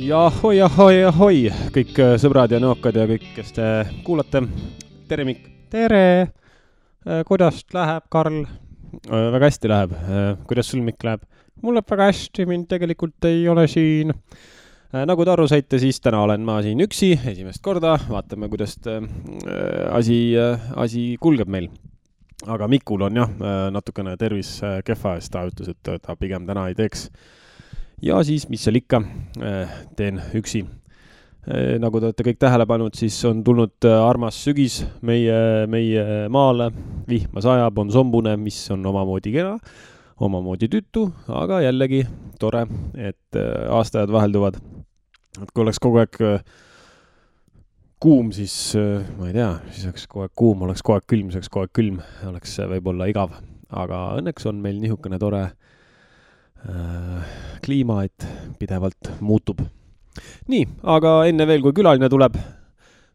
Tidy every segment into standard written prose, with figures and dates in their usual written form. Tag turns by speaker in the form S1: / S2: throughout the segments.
S1: Ja ahoi, kõik sõbrad ja nõokad ja kõik, kes te kuulate. Tere, Mikk. Tere. Kuidas läheb, Karl? Väga hästi läheb. Kuidas sul, Mikk, läheb? Mul läheb väga hästi, mind tegelikult ei ole siin. Nagu te aru saite, siis täna olen ma siin üksi, esimest korda. Vaatame, kuidas asi kulgeb meil. Aga Mikul on jah, natukene tervis kehva, sest ta ütles, et ta pigem täna ei teeks. Ja siis, mis seal ikka, teen üksi. Nagu te olete kõik tähele pannud, siis on tulnud armas sügis meie maale. Vihma sajab, on sombune, mis on omamoodi kena, omamoodi tütu, aga jällegi tore, et aastajad vahelduvad. Et kui oleks kogu aeg kuum, siis ma ei tea, siis oleks kogu aeg kuum, oleks kogu aeg külm, oleks võib-olla igav. Aga õnneks on meil nihukene tore kliima, et pidevalt muutub. Nii, aga enne veel, kui külaline tuleb,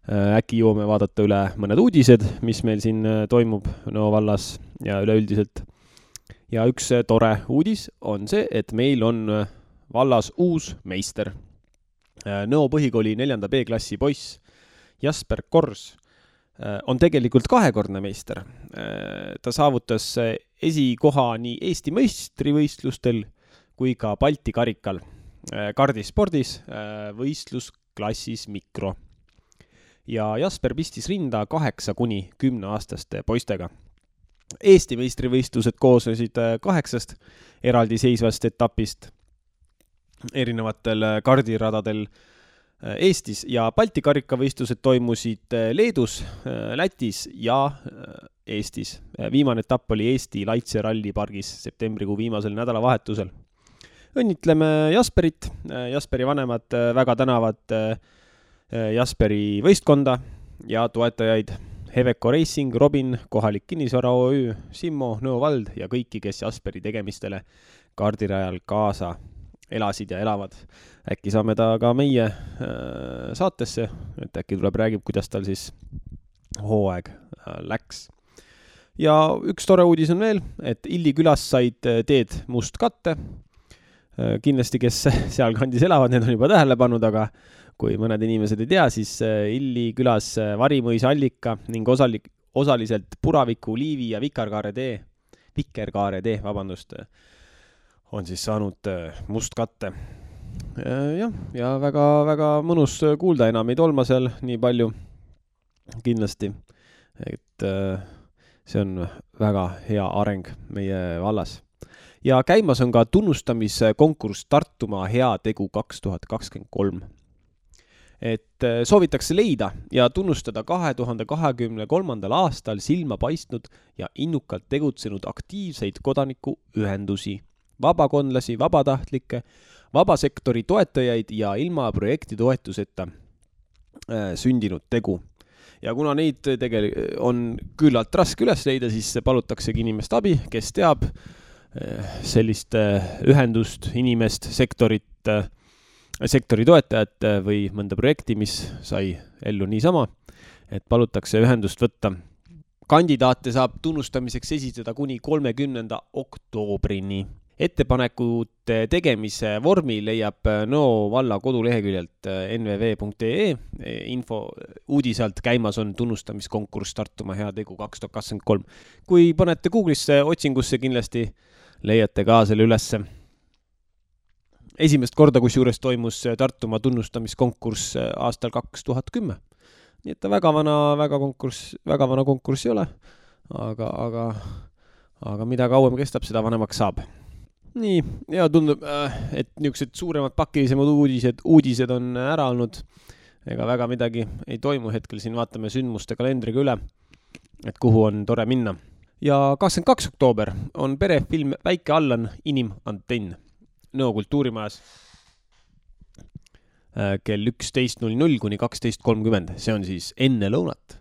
S1: äkki jõuame vaadata üle mõned uudised, mis meil siin toimub Nõo vallas ja üleüldiselt. Ja üks tore uudis on see, et meil on vallas uus meister. Nõo põhikooli 4. B-klassi poiss Jasper Kors on tegelikult kahekordne meister. Ta saavutas esikoha nii Eesti meistrivõistlustel kui ka Balti karikal kardispordis võistlusklassis mikro. Ja Jasper pistis rinda 8–10 aastaste poistega. Eesti meistrivõistlused koosnesid 8 eraldiseisvast etapist erinevatel kardiradadel Eestis ja Balti karikavõistlused toimusid Leedus, Lätis ja Eestis. Viimane etapp oli Eesti Laitse rallipargis septembrikuu viimasel nädalavahetusel. Õnnitleme Jasperit. Jasperi vanemad väga tänavad Jasperi võistkonda ja toetajaid Heveco Racing, Robin, kohalik kinnisvara OÜ, Simmo, Nõo vald ja kõiki, kes Jasperi tegemistele kardirajal kaasa elasid ja elavad. Äkki saame ta ka meie saatesse, et äkki tuleb räägib, kuidas tal siis hooaeg läks. Ja üks tore uudis on veel, et Illi külas said teed must katte. Kindlasti, kes seal kandis elavad, need on juba tähele pannud, aga kui mõned inimesed ei tea, siis Illi külas Varimõisa allika ning osaliselt Puraviku, Liivi ja Vikerkaare tee, on siis saanud must katte. Ja väga mõnus kuulda, enam ei tolma seal nii palju kindlasti. Et see on väga hea areng meie vallas. Ja käimas on ka tunnustamiskonkurss Tartumaa hea tegu 2023. Et soovitakse leida ja tunnustada 2023. aastal silma paistnud ja innukalt tegutsenud aktiivseid kodanikuühendusi, vabakondlasi, vabatahtlikke, vabasektori toetajaid ja ilma projekti toetuseta sündinud tegu. Ja kuna neid on küllalt raske üles leida, siis palutaksegi inimest abi, kes teab sellist ühendust, inimest, sektori toetajat või mõnda projekti, mis sai ellu niisama, et palutakse ühendust võtta. Kandidaate saab tunnustamiseks esitada kuni 30. oktoobrini. Ettepanekute tegemise vormi leiab Nõo valla koduleheküljelt nvv.ee. Info uudisalt käimas on tunnustamiskonkurss Tartumaa hea tegu 2023. Kui panete Google'isse otsingusse, kindlasti leiate ka selle ülesse. Esimest korda, kus juures toimus Tartumaa tunnustamiskonkurss aastal 2010. Nii et ta väga vana konkurss ei ole, aga mida kauem kestab, seda vanemaks saab. Nii, ja tundub, et niisugused suuremad pakilisemad uudised on ära olnud. Ega väga midagi ei toimu hetkel, siin vaatame sündmuste kalendriga üle, et kuhu on tore minna. Ja 22. oktoober on perefilm Väike Allan inimantenn Nõo kultuurimajas kell 11.00 kuni 12.30. See on siis enne lõunat.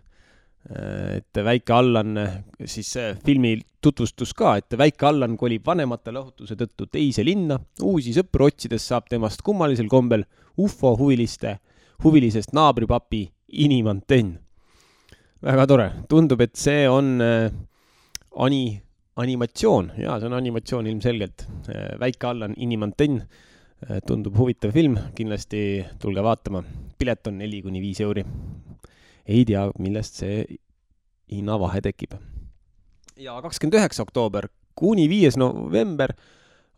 S1: Et Väike Allan, siis filmi tutvustus ka, et Väike Allan kolib vanemate lahutuse tõttu teise linna. Uusi sõpru otsides saab temast kummalisel kombel UFO huvilisest naabripapi inimantenn. Väga tore. Tundub, et see on animatsioon. Jaa, see on animatsioon ilmselgelt. Väike Allan inimantenn Tundub huvitav film, kindlasti tulge vaatama. Pilet on 4-5 euri. Ei tea, millest see hinnavahe tekib. Ja 29. oktoober kuni 5. november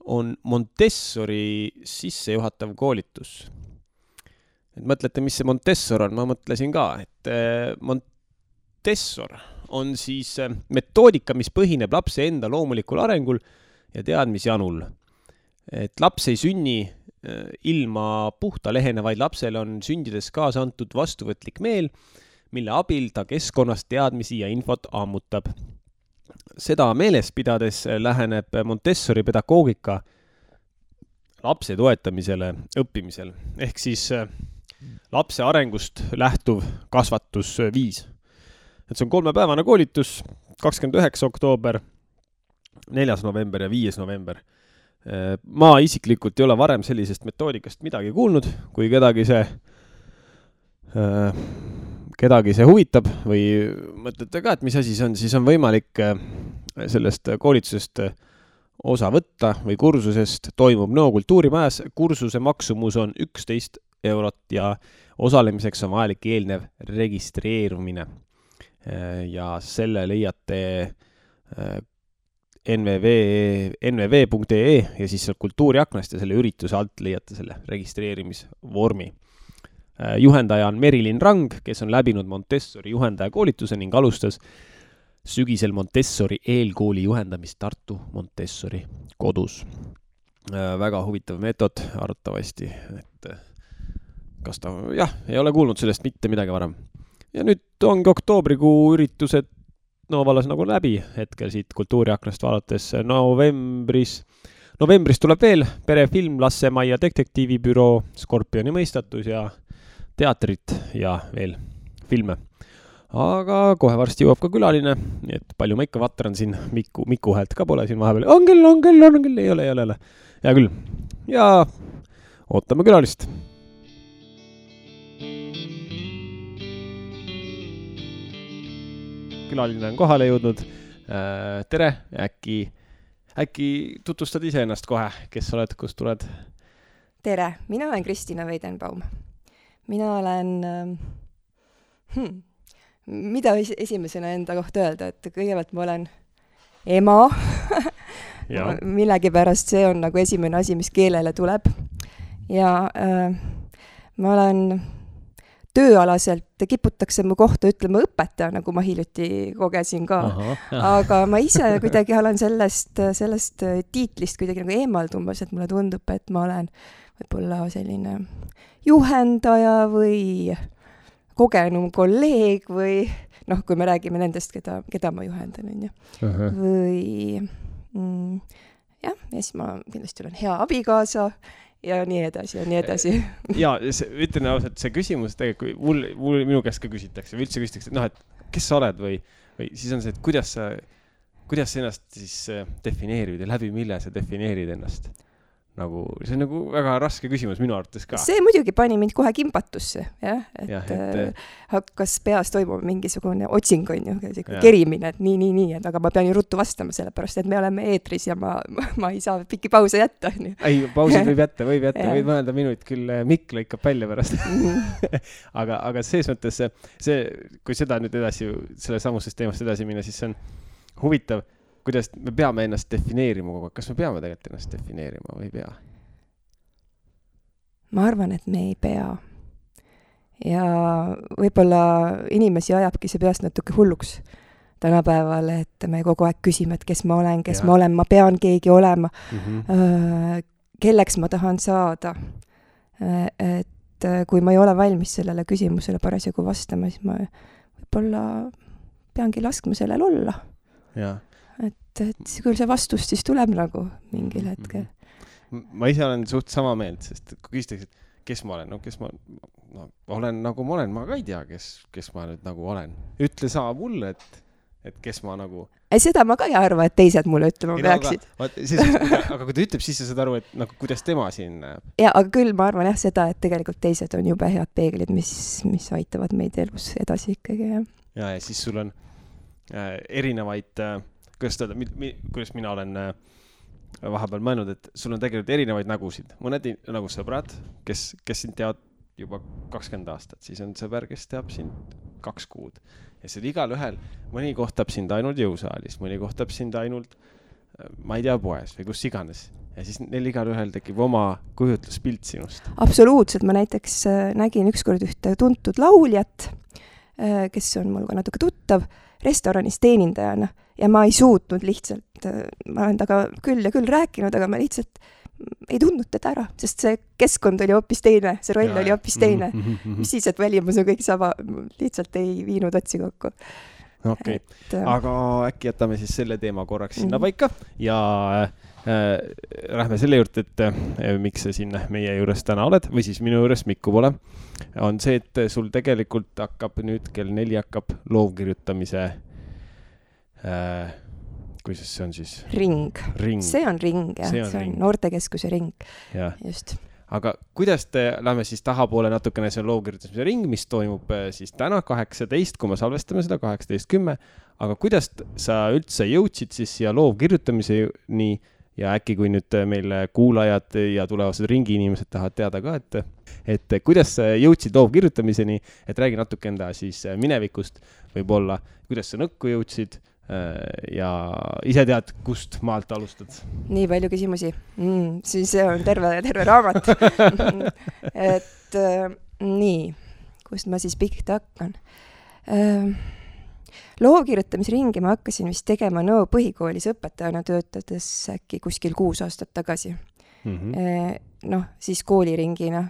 S1: on Montessori sissejuhatav koolitus. Et mõtlete, mis see Montessor on? Ma mõtlesin ka, et Montessor on siis metoodika, mis põhineb lapse enda loomulikul arengul ja teadmisjanul. Et laps ei sünni ilma puhta lehena, vaid lapsele on sündides kaasa antud vastuvõtlik meel, mille abil ta keskkonnast teadmisi ja infot ammutab. Seda meeles pidades läheneb Montessori pedagoogika lapse toetamisele õppimisel. Ehk siis lapse arengust lähtuv kasvatusviis. Et see on 3-päevane koolitus, 29. oktoober, 4. november ja 5. november. Ma isiklikult ei ole varem sellisest metoodikast midagi kuulnud, kui kedagi see huvitab või mõtlete ka, et mis asi see on, siis on võimalik sellest koolitusest osa võtta või kursusest toimub Nõo kultuurimajas. Kursuse maksumus on 11 eurot ja osalemiseks on vajalik eelnev registreerumine. Ja selle leiate nvv.ee ja siis kultuuriaknast ja selle ürituse alt leiate selle registreerimisvormi. Juhendaja on Merilin Rang, kes on läbinud Montessori juhendaja koolituse ning alustas sügisel Montessori eelkooli juhendamist Tartu Montessori kodus. Väga huvitav meetod arvatavasti, et kas ta, ei ole kuulnud sellest mitte midagi varem. Ja nüüd ongi oktoobrikuu üritused Vallas nagu läbi hetkel siit kultuuriaknast vaadates. Novembris tuleb veel perefilm Lassemaia detektiivibüroo, Skorpioni mõistatus ja teatrit ja veel filme. Aga kohe varsti jõuab ka külaline, nii et palju ma ikka vatran siin, Miku häält ka pole siin vahepeal. On küll, ei ole. Hea küll. Ja ootame külalist. Külaline on kohale jõudnud. Tere, äkki tutvustad ise ennast kohe, kes oled, kust tuled?
S2: Tere, mina olen Kristina Weidenbaum. Mina olen, mida esimesena enda kohta öelda, et kõigepealt ma olen ema, millegipärast see on nagu esimene asi, mis keelele tuleb. Ja ma olen tööalaselt kiputakse mu kohta ütlema õpetaja, nagu ma hiljuti kogesin ka. Aga ma ise kuidagi olen sellest tiitlist kuidagi nagu eemaldumas, et mulle tundub, et ma olen võib-olla selline juhendaja või kogenum kolleeg või kui me räägime nendest, keda ma juhendan. Või ja siis ma kindlasti olen hea abikaasa ja nii edasi.
S1: Ja ütlen ausalt, see küsimus tegelikult, minu käest ka küsitakse, või üldse küsitakse, et kes sa oled või siis on see, et kuidas sa ennast siis defineerid ja läbi mille sa defineerid ennast? See on nagu väga raske küsimus minu arvates ka.
S2: See muidugi pani mind kohe kimbatusse, et hakkas peas toimuma mingisugune otsing, kerimine, et nii, aga ma pean ju ruttu vastama sellepärast, et me oleme eetris ja ma ei saa pikki pause jätta.
S1: Ei, pausid võib jätta, võid mõelda minut, küll Mikk lõikab välja pärast. aga selles mõttes kui seda nüüd edasi, selle samusest teemast edasi minna, siis see on huvitav, kuidas me peame ennast defineerima kogu aeg. Kas me peame tegelikult ennast defineerima või ei pea?
S2: Ma arvan, et me ei pea. Ja võib-olla inimesi ajabki see peast natuke hulluks tänapäeval, et me kogu aeg küsime, et kes ma olen, ma pean keegi olema, kelleks ma tahan saada. Et kui ma ei ole valmis sellele küsimusele parasjagu vastama, siis ma võib-olla peangi laskma sellel olla.
S1: Jaa.
S2: Et küll see vastus siis tuleb nagu mingil hetkel.
S1: Ma ise olen suht sama meelt, sest kui küsitakse, et kes ma olen, olen nagu ma olen, ma ka ei tea, kes ma nüüd nagu olen. Ütle sa mulle, et kes ma nagu...
S2: Seda ma ka ei arva, et teised mulle ütlema peaksid.
S1: Aga kui ta ütleb, siis sa saad aru, et kuidas tema siin näeb.
S2: Ja, aga küll ma arvan seda, et tegelikult teised on jube head peeglid, mis aitavad meid elus edasi ikkagi.
S1: Ja siis sul on erinevaid... kuidas mina olen vahepeal mõelnud, et sul on tegelikult erinevaid nägusid. Mõned nagu sõbrad, kes sind teavad juba 20 aastat, siis on sõber, kes teab sind 2 kuud. Ja see igal ühel, mõni kohtab sind ainult jõusaalis, mõni kohtab sind ainult, ma ei tea, poes või kus iganes. Ja siis neil igal ühel tekib oma kujutluspilt sinust.
S2: Absoluutselt, ma näiteks nägin ükskord ühte tuntud lauljat, kes on mul ka natuke tuttav, restoranis teenindajana ja ma ei suutnud lihtsalt, ma olen taga küll ja küll rääkinud, aga ma lihtsalt ei tundnud teda ära, sest see keskkond oli hoopis teine, see roll oli hoopis teine. Mis siis, et välimus on kõik sama, lihtsalt ei viinud otsi kokku.
S1: Okei, aga äkki jätame siis selle teema korraks sinna paika ja lähme selle juurde, et miks sa siin meie juures täna oled või siis minu juures Mikku pole, on see, et sul tegelikult hakkab nüüd kell 4 hakkab loovkirjutamise kuidas see on siis? Ring.
S2: See on ring, jah. See on noortekeskuse ring.
S1: Ja.
S2: Just.
S1: Aga kuidas lähme siis tahapoole natukene see loovkirjutamise ring, mis toimub siis täna 18, kui me salvestame seda 18.10, aga kuidas sa üldse jõudsid siis siia loovkirjutamiseni ja äkki kui nüüd meil kuulajad ja tulevased ringi inimesed tahavad teada ka, et kuidas sa jõudsid loovkirjutamiseni, et räägi natuke enda siis minevikust võib-olla, kuidas sa nõkku jõudsid ja ise tead, kust maalt alustad?
S2: Nii palju küsimusi. Siis see on terve raamat. Et nii, kust ma siis pihta hakkan? Loovkirjutamisringi ma hakkasin vist tegema Nõo põhikoolis õpetajana töötades äkki kuskil 6 aastat tagasi. Siis kooliringina.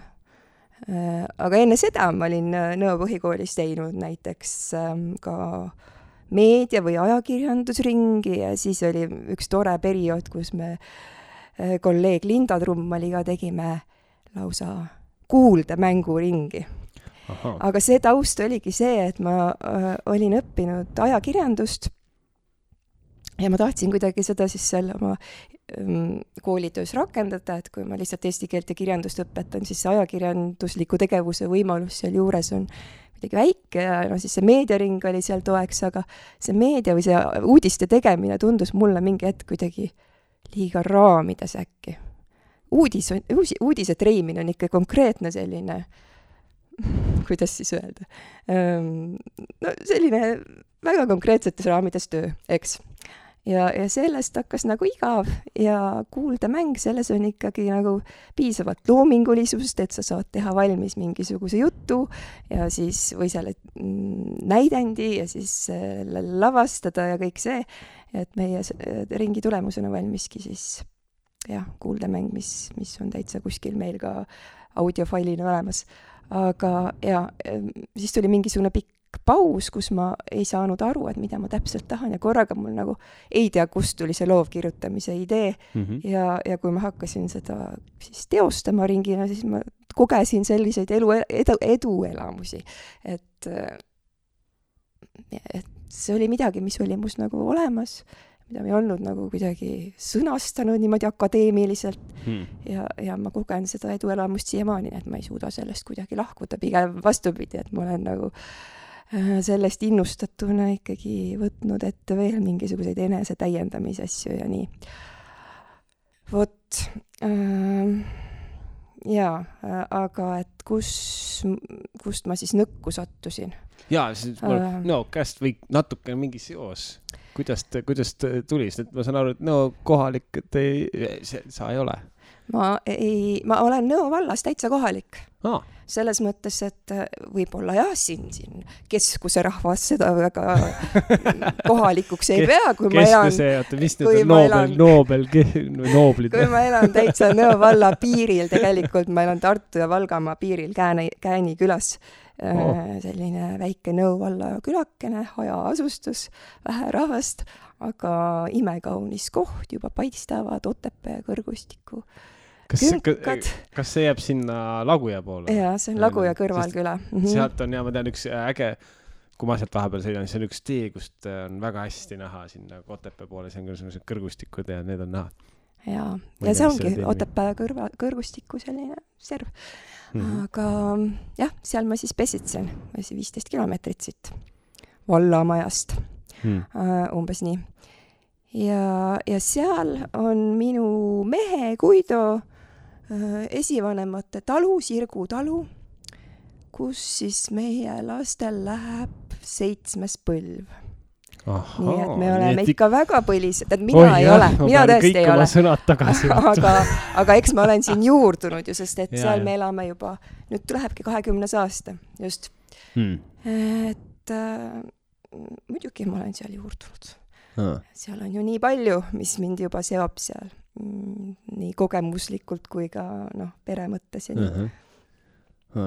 S2: Aga enne seda ma olin Nõo põhikoolis teinud näiteks ka meedia- või ajakirjandusringi ja siis oli üks tore periood, kus me kolleeg Linda Trummaliga tegime lausa kuuldemänguringi. Aga see taust oligi see, et ma olin õppinud ajakirjandust ja ma tahtsin kuidagi seda siis seal oma koolitöös rakendada, et kui ma lihtsalt eesti keelt ja kirjandust õpetan, siis see ajakirjandusliku tegevuse võimalus seal juures on midagi väike ja siis see meediaring oli seal toeks, aga see meedia või see uudiste tegemine tundus mulle mingi hetk kuidagi liiga raamides äkki. Uudise treimine on ikka konkreetne selline, kuidas siis öelda, selline väga konkreetsetes raamides töö, eks. Ja sellest hakkas nagu igav ja kuuldemäng, selles on ikkagi nagu piisavalt loomingulisust, et sa saad teha valmis mingisuguse jutu ja siis või selle näidendi ja siis lavastada ja kõik see, et meie ringi tulemusena valmiski siis kuuldemäng, mis on täitsa kuskil meil ka audiofailina olemas. Aga siis tuli mingisugune pikk paus, kus ma ei saanud aru, et mida ma täpselt tahan ja korraga mul nagu ei tea, kust tuli see loovkirjutamise idee ja kui ma hakkasin seda siis teostama ringina, siis ma kogesin selliseid eduelamusi, et see oli midagi, mis oli must nagu olemas, mida ma ei olnud nagu kuidagi sõnastanud niimoodi akadeemiliselt ja ma kogen seda eduelamust siiamaani, et ma ei suuda sellest kuidagi lahkuda, pigem vastupidi, et ma olen nagu sellest innustatuna ikkagi võtnud ette veel mingisuguseid enese täiendamise asju ja nii. Vot, aga et kust ma siis nõkku sattusin?
S1: Jaa, siis käest või natuke mingi seos. Kuidas tuli? Ma saan aru, et kohalik, sa ei ole.
S2: Ma olen Nõo vallas täitsa kohalik. Selles mõttes, et võib-olla siin keskuse rahvas seda väga kohalikuks ei pea, kui ma elan kui ma elan täitsa Nõo valla piiril, tegelikult ma elan Tartu ja Valgamaa piiril Kääni külas. Selline väike Nõo valla külakene, hajaasustus, vähe rahvast, aga imekaunis koht, juba paistavad Otepää kõrgustiku künkad.
S1: Kas see jääb sinna Laguja poole?
S2: Jaa, see on Laguja kõrvalküla.
S1: Sealt on, ma tean, üks äge, kui ma sealt vahepeal sõidan, see on üks tee, kust on väga hästi näha sinna Otepää poole, see on küll kõrgustikud ja need on näha. Jaa, ja see ongi Otepää kõrgustiku selline serv. Aga seal ma siis pesitsen, 15 kilomeetrit siit vallamajast, umbes nii.
S2: ja seal on minu mehe Guido esivanemate talu, Sirgu talu, kus siis meie lastel läheb 7. põlv. Nii et me oleme ikka väga põlised, et mina ei ole, mina tõesti ei ole. aga eks ma olen siin juurdunud ju, sest et seal me elame juba, nüüd lähebki 20. aasta, just. Et muidugi ma olen seal juurdunud. Seal on ju nii palju, mis mind juba seob seal, nii kogemuslikult kui ka pere mõttes ja nii.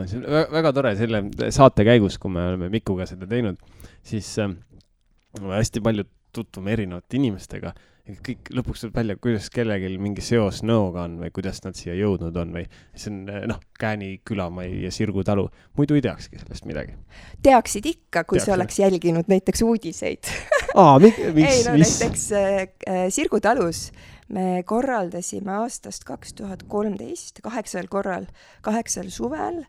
S1: See on väga tore selle saate käigus, kui me oleme Mikuga seda teinud, siis hästi palju tutvume erinevate inimestega ja kõik lõpuks tuleb välja, kuidas kellelgi mingi seos Nõoga on või kuidas nad siia jõudnud on või see on Kääni külamai ja Sirgu talu. Muidu ei teakski sellest midagi.
S2: Teaksid ikka, kui sa oleks jälginud näiteks uudiseid.
S1: Näiteks
S2: Sirgu talus me korraldasime aastast 2013 8. suvel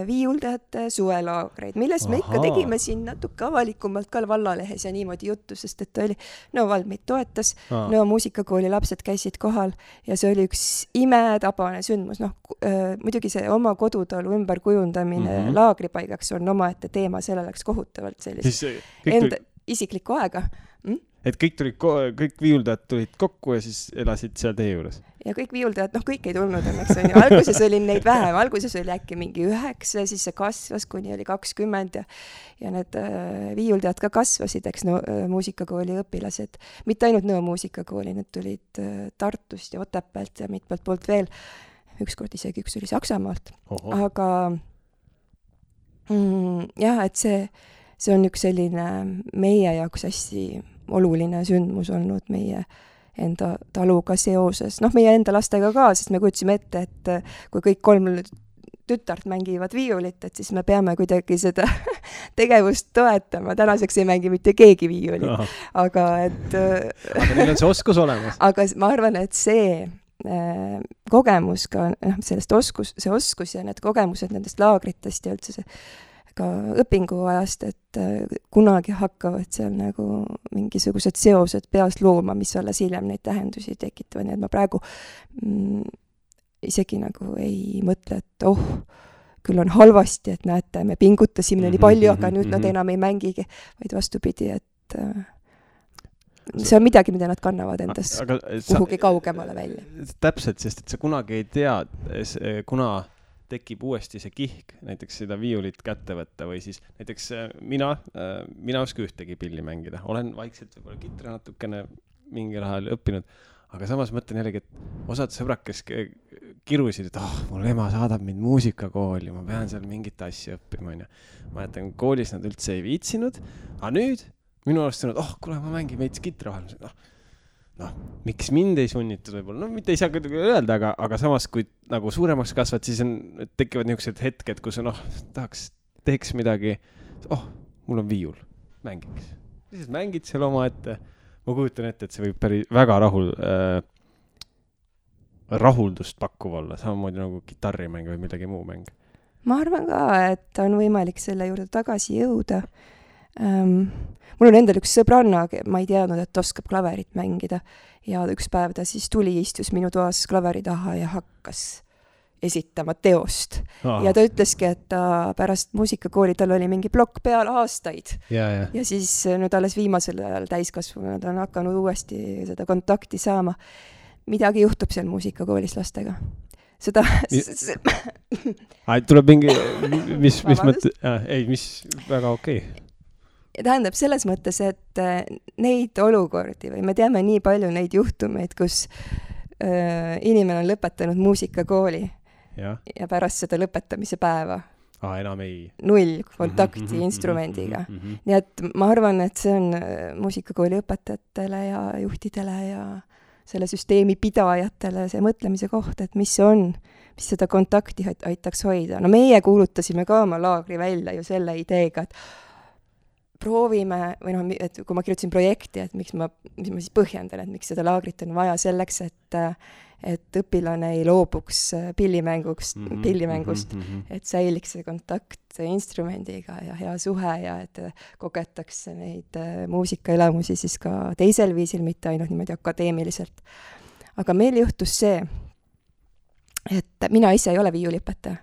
S2: viiuldajate suvelaagreid, millest me ikka tegime siin natuke avalikumalt ka vallalehes ja niimoodi juttu, sest et oli Nõo vald meid toetas, Nõo muusikakooli lapsed käisid kohal ja see oli üks imetabane sündmus. Muidugi see oma kodutalu ümberkujundamine laagripaigaks on omaette teema, selle läks kohutavalt sellist enda isiklikku aega.
S1: Et kõik viiuldajad tulid kokku ja siis elasid seal teie juures?
S2: Ja kõik viiuldajad, kõik ei tulnud õnneks on ju. Alguses oli neid vähem, alguses oli äkki mingi 9, siis see kasvas, kuni oli 20 ja need viiuldajad ka kasvasid, eks muusikakooli õpilased. Mitte ainult Nõo muusikakooli, need tulid Tartust ja Otepäält ja mitmelt poolt veel. Ükskord isegi üks oli Saksamaalt. Aga jah, et see on üks selline meie jaoks hästi oluline sündmus olnud meie enda taluga seoses. Meie enda lastega ka, sest me kutsime ette, et kui kõik 3 tütart mängivad viiulit, et siis me peame kuidagi seda tegevust toetama. Tänaseks ei mängi mitte keegi viiulit. Aga
S1: neil on see oskus olemas.
S2: Aga ma arvan, et see kogemus ka, sellest see oskus ja need kogemused nendest laagritest ja üldse see ka õpinguajast, et kunagi hakkavad seal nagu mingisugused seosed peas looma, mis alles hiljem neid tähendusi tekitavad. Nii et ma praegu isegi nagu ei mõtle, et küll on halvasti, et näete, me pingutasime nii palju, aga nüüd nad enam ei mängigi, vaid vastupidi, et see on midagi, mida nad kannavad endast kuhugi kaugemale välja.
S1: Täpselt, sest et sa kunagi ei tea, kuna tekib uuesti see kihk, näiteks seda viiulit kätte võtta või siis näiteks mina oska ühtegi pilli mängida. Olen vaikselt võib-olla kitra natukene mingil ajal õppinud, aga samas mõtlen jällegi, et osad sõbrad, kes kirusid, et mul ema saadab mind muusikakooli, ma pean seal mingit asja õppima. Ma jätan, koolis nad üldse ei viitsinud, aga nüüd minu arust on, kuule, ma mängin veits kitra vahel. Miks mind ei sunnitud võib-olla? Mitte ei saa kuidagi öelda, aga samas, kui nagu suuremaks kasvad, siis tekivad niisugused hetked, kus teeks midagi, mul on viiul, mängiks. Siis mängid seal oma ette. Ma kujutan ette, et see võib väga rahuldust pakkuv olla, samamoodi nagu kitarrimäng või midagi muu mäng.
S2: Ma arvan ka, et on võimalik selle juurde tagasi jõuda. Mul on endal üks sõbranna, ma ei teadnud, et oskab klaverit mängida ja üks päev ta siis tuli, istus minu toas klaveri taha ja hakkas esitama teost. Ja ta ütleski, et ta pärast muusikakooli, tal oli mingi plokk peal aastaid. Ja siis nüüd alles viimasel ajal täiskasvanud on hakanud uuesti seda kontakti saama. Midagi juhtub seal muusikakoolis lastega. Seda...
S1: tuleb mingi... mis väga okei.
S2: Tähendab selles mõttes, et neid olukordi või me teame nii palju neid juhtumeid, kus inimene on lõpetanud muusikakooli ja pärast seda lõpetamise päeva
S1: enam ei.
S2: 0 kontakti instrumendiga. Nii et ma arvan, et see on muusikakooli õpetajatele ja juhtidele ja selle süsteemi pidajatele see mõtlemise koht, et mis see on, mis seda kontakti aitaks hoida. Meie kuulutasime ka oma laagri välja ju selle ideega, et proovime, või noh, et kui ma kirjutasin projekti, et mis ma siis põhjendan, et miks seda laagrit on vaja selleks, et õpilane ei loobuks pillimängust, et säiliks see kontakt instrumendiga ja hea suhe ja et kogetakse neid muusikaelamusi siis ka teisel viisil, mitte ainult niimoodi akadeemiliselt. Aga meil juhtus see, et mina ise ei ole viiuliõpetaja.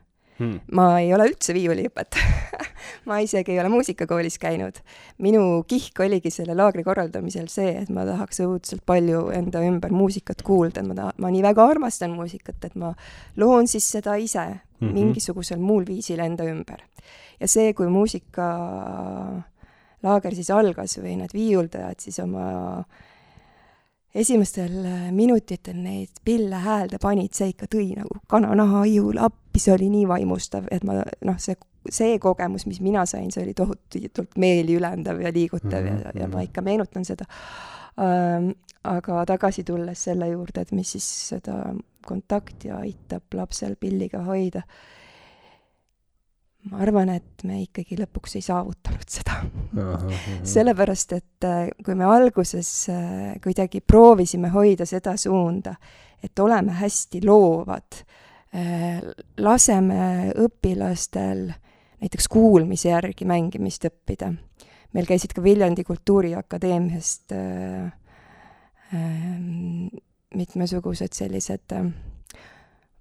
S2: Ma ei ole üldse viiuliõpetaja. Ma isegi ei ole muusikakoolis käinud. Minu kihk oligi selle laagri korraldamisel see, et ma tahaks õudselt palju enda ümber muusikat kuulda. Ma nii väga armastan muusikat, et ma loon siis seda ise mingisugusel muul viisil enda ümber. Ja see, kui muusika laager siis algas või need viiuldajad siis oma esimestel minutitel neid pille häälde panid, see ikka tõi nagu kananaha ihul appi, see oli nii vaimustav, et ma, see kogemus, mis mina sain, see oli tohutult meeli ülendav ja liigutav ja ma ikka meenutan seda. Aga tagasi tulles selle juurde, et mis siis seda kontakti aitab lapsel pilliga hoida, ma arvan, et me ikkagi lõpuks ei saavutanud seda. Sellepärast, et kui me alguses kuidagi proovisime hoida seda suunda, et oleme hästi loovad, laseme õpilastel näiteks kuulmise järgi mängimist õppida. Meil käisid ka Viljandi Kultuuriakadeemiast mitmesugused sellised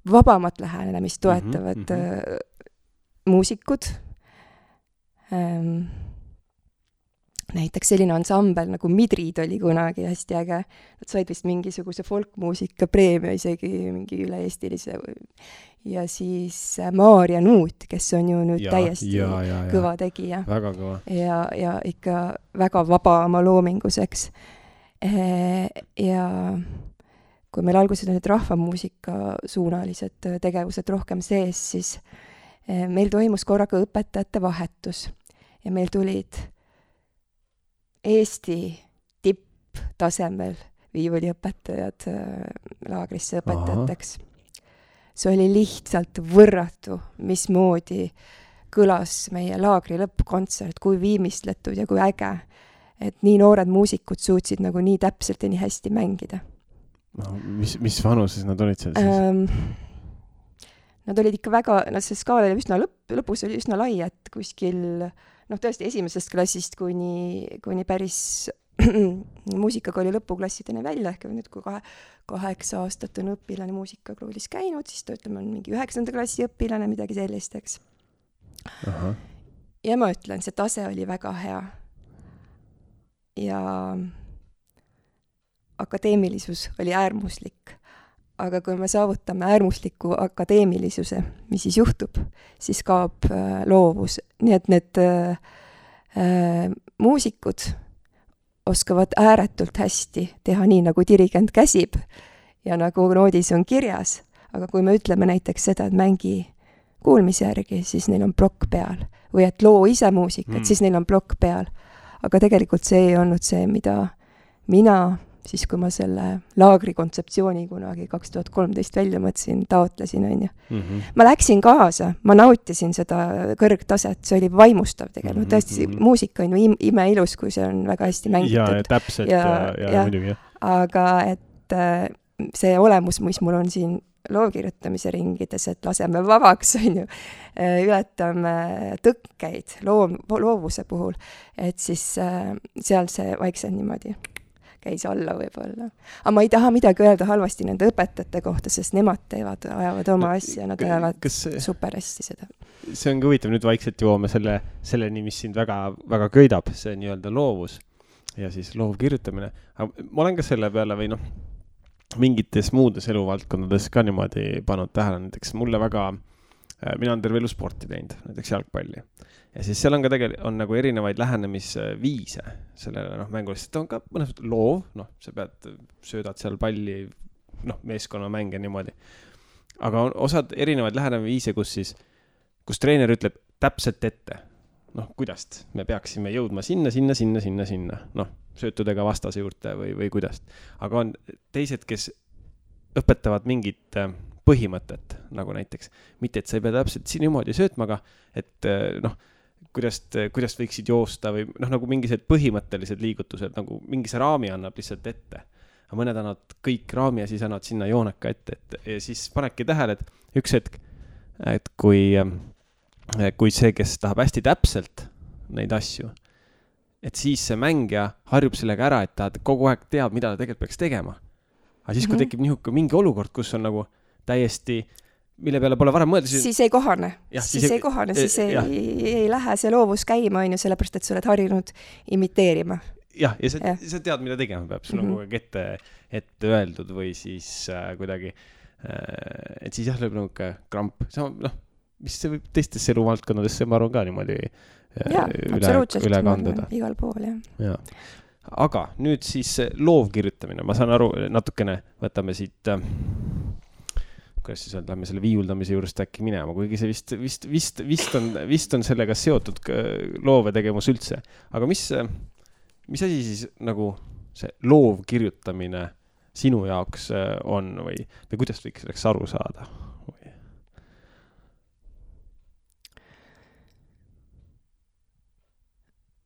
S2: vabamat lähenemist toetavad muusikud. Näiteks selline ansambel nagu Midrid oli kunagi hästi äge. Nad said vist mingisuguse folkmuusika preemia, isegi mingi üle-eestilise. Ja siis Maarja Nuut, kes on ju nüüd täiesti kõva tegija.
S1: Väga kõva.
S2: Ja ikka väga vaba oma loominguseks. Ja kui meil alguses on need rahvamuusika suunalised tegevused rohkem sees, siis meil toimus korraga õpetajate vahetus ja meil tulid Eesti tipptasemel viiuliõpetajad laagrisse õpetajateks. See oli lihtsalt võrratu, mismoodi kõlas meie laagri lõppkontsert, kui viimistletud ja kui äge, et nii noored muusikud suutsid nagu nii täpselt ja nii hästi mängida.
S1: Mis vanuses nad olid seal siis?
S2: Nad olid ikka väga, see skaal oli üsna lõpus oli üsna lai, et kuskil, tõesti esimesest klassist kuni päris muusikakooli lõpuklassideni välja, ehk nüüd kui 8 aastat on õpilane muusikakoolis käinud, siis ta ütleme on mingi 9. klassi õpilane, midagi sellist, eks. Ja ma ütlen, see tase oli väga hea. Ja akadeemilisus oli äärmuslik. Aga kui me saavutame äärmusliku akadeemilisuse, mis siis juhtub, siis kaob loovus. Nii et need muusikud oskavad ääretult hästi teha nii, nagu dirigent käsib ja nagu noodis on kirjas. Aga kui me ütleme näiteks seda, et mängi kuulmise järgi, siis neil on plokk peal. Või et loo ise muusikat, siis neil on plokk peal. Aga tegelikult see ei olnud see, mida mina siis kui ma selle laagri kontseptsiooni kunagi 2013 välja mõtlesin, taotlesin, on ju. Ma läksin kaasa, ma nautisin seda kõrgtaset, see oli vaimustav tegelikult. Tõesti, muusika on ju imeilus, kui see on väga hästi mängitud.
S1: Ja täpselt ja muidugi.
S2: Aga et see olemus, mis mul on siin loovkirjutamise ringides, et laseme vabaks, on ju, ületame tõkkeid loovuse puhul, et siis seal see vaikselt niimoodi käis alla võib-olla. Aga ma ei taha midagi öelda halvasti nende õpetajate kohta, sest nemad ajavad oma asja, nad ajavad super hästi seda.
S1: See ongi huvitav, nüüd vaikselt jõuame selleni, mis sind väga, väga köidab, see nii-öelda loovus ja siis loovkirjutamine. Aga ma olen ka selle peale või mingites muudes eluvaldkondades ka niimoodi pannud tähele, näiteks mulle väga, mina olen terve elu sporti teinud, näiteks jalgpalli. Ja siis seal on ka on nagu erinevaid lähenemisviise sellele mängule, sest on ka mõnes loov, sa söödad seal palli, meeskonnamänge niimoodi. Aga on osad erinevaid lähenemisviise, kus treener ütleb täpselt ette, kuidas me peaksime jõudma sinna, söötudega vastase juurde või kuidas. Aga on teised, kes õpetavad mingit põhimõtet, nagu näiteks, mitte et sa ei pea täpselt siin niimoodi söötma, aga et kuidas võiksid joosta või noh, nagu mingised põhimõttelised liigutused, nagu mingi see raami annab lihtsalt ette. Aga mõned annavad kõik raami ja siis annavad sinna jooneka ette. Ja siis panedki tähele, et üks hetk, et kui see, kes tahab hästi täpselt neid asju, et siis see mängija harjub sellega ära, et ta kogu aeg teab, mida ta tegelikult peaks tegema. Aga siis, kui tekib mingi olukord, kus on nagu täiesti, mille peale pole varem mõelda,
S2: siis ei kohane. Siis ei lähe see loovus käima, on ju, sellepärast, et sa oled harjunud imiteerima.
S1: Jah, ja sa tead, mida tegema peab. Sul on kogu aeg ette öeldud või siis kuidagi, et siis jah, lööb nagu kramp. Mis see võib teistesse eluvaldkonnadesse, ma arvan ka niimoodi üle kanduda.
S2: Igal pool,
S1: jah. Aga nüüd siis loovkirjutamine. Ma saan aru, natukene võtame siit, kuidas siis lähme selle viiuldamise juurest äkki minema, kuigi see vist on sellega seotud loovetegevus üldse. Aga mis asi siis nagu see loovkirjutamine sinu jaoks on või kuidas võiks selleks aru saada?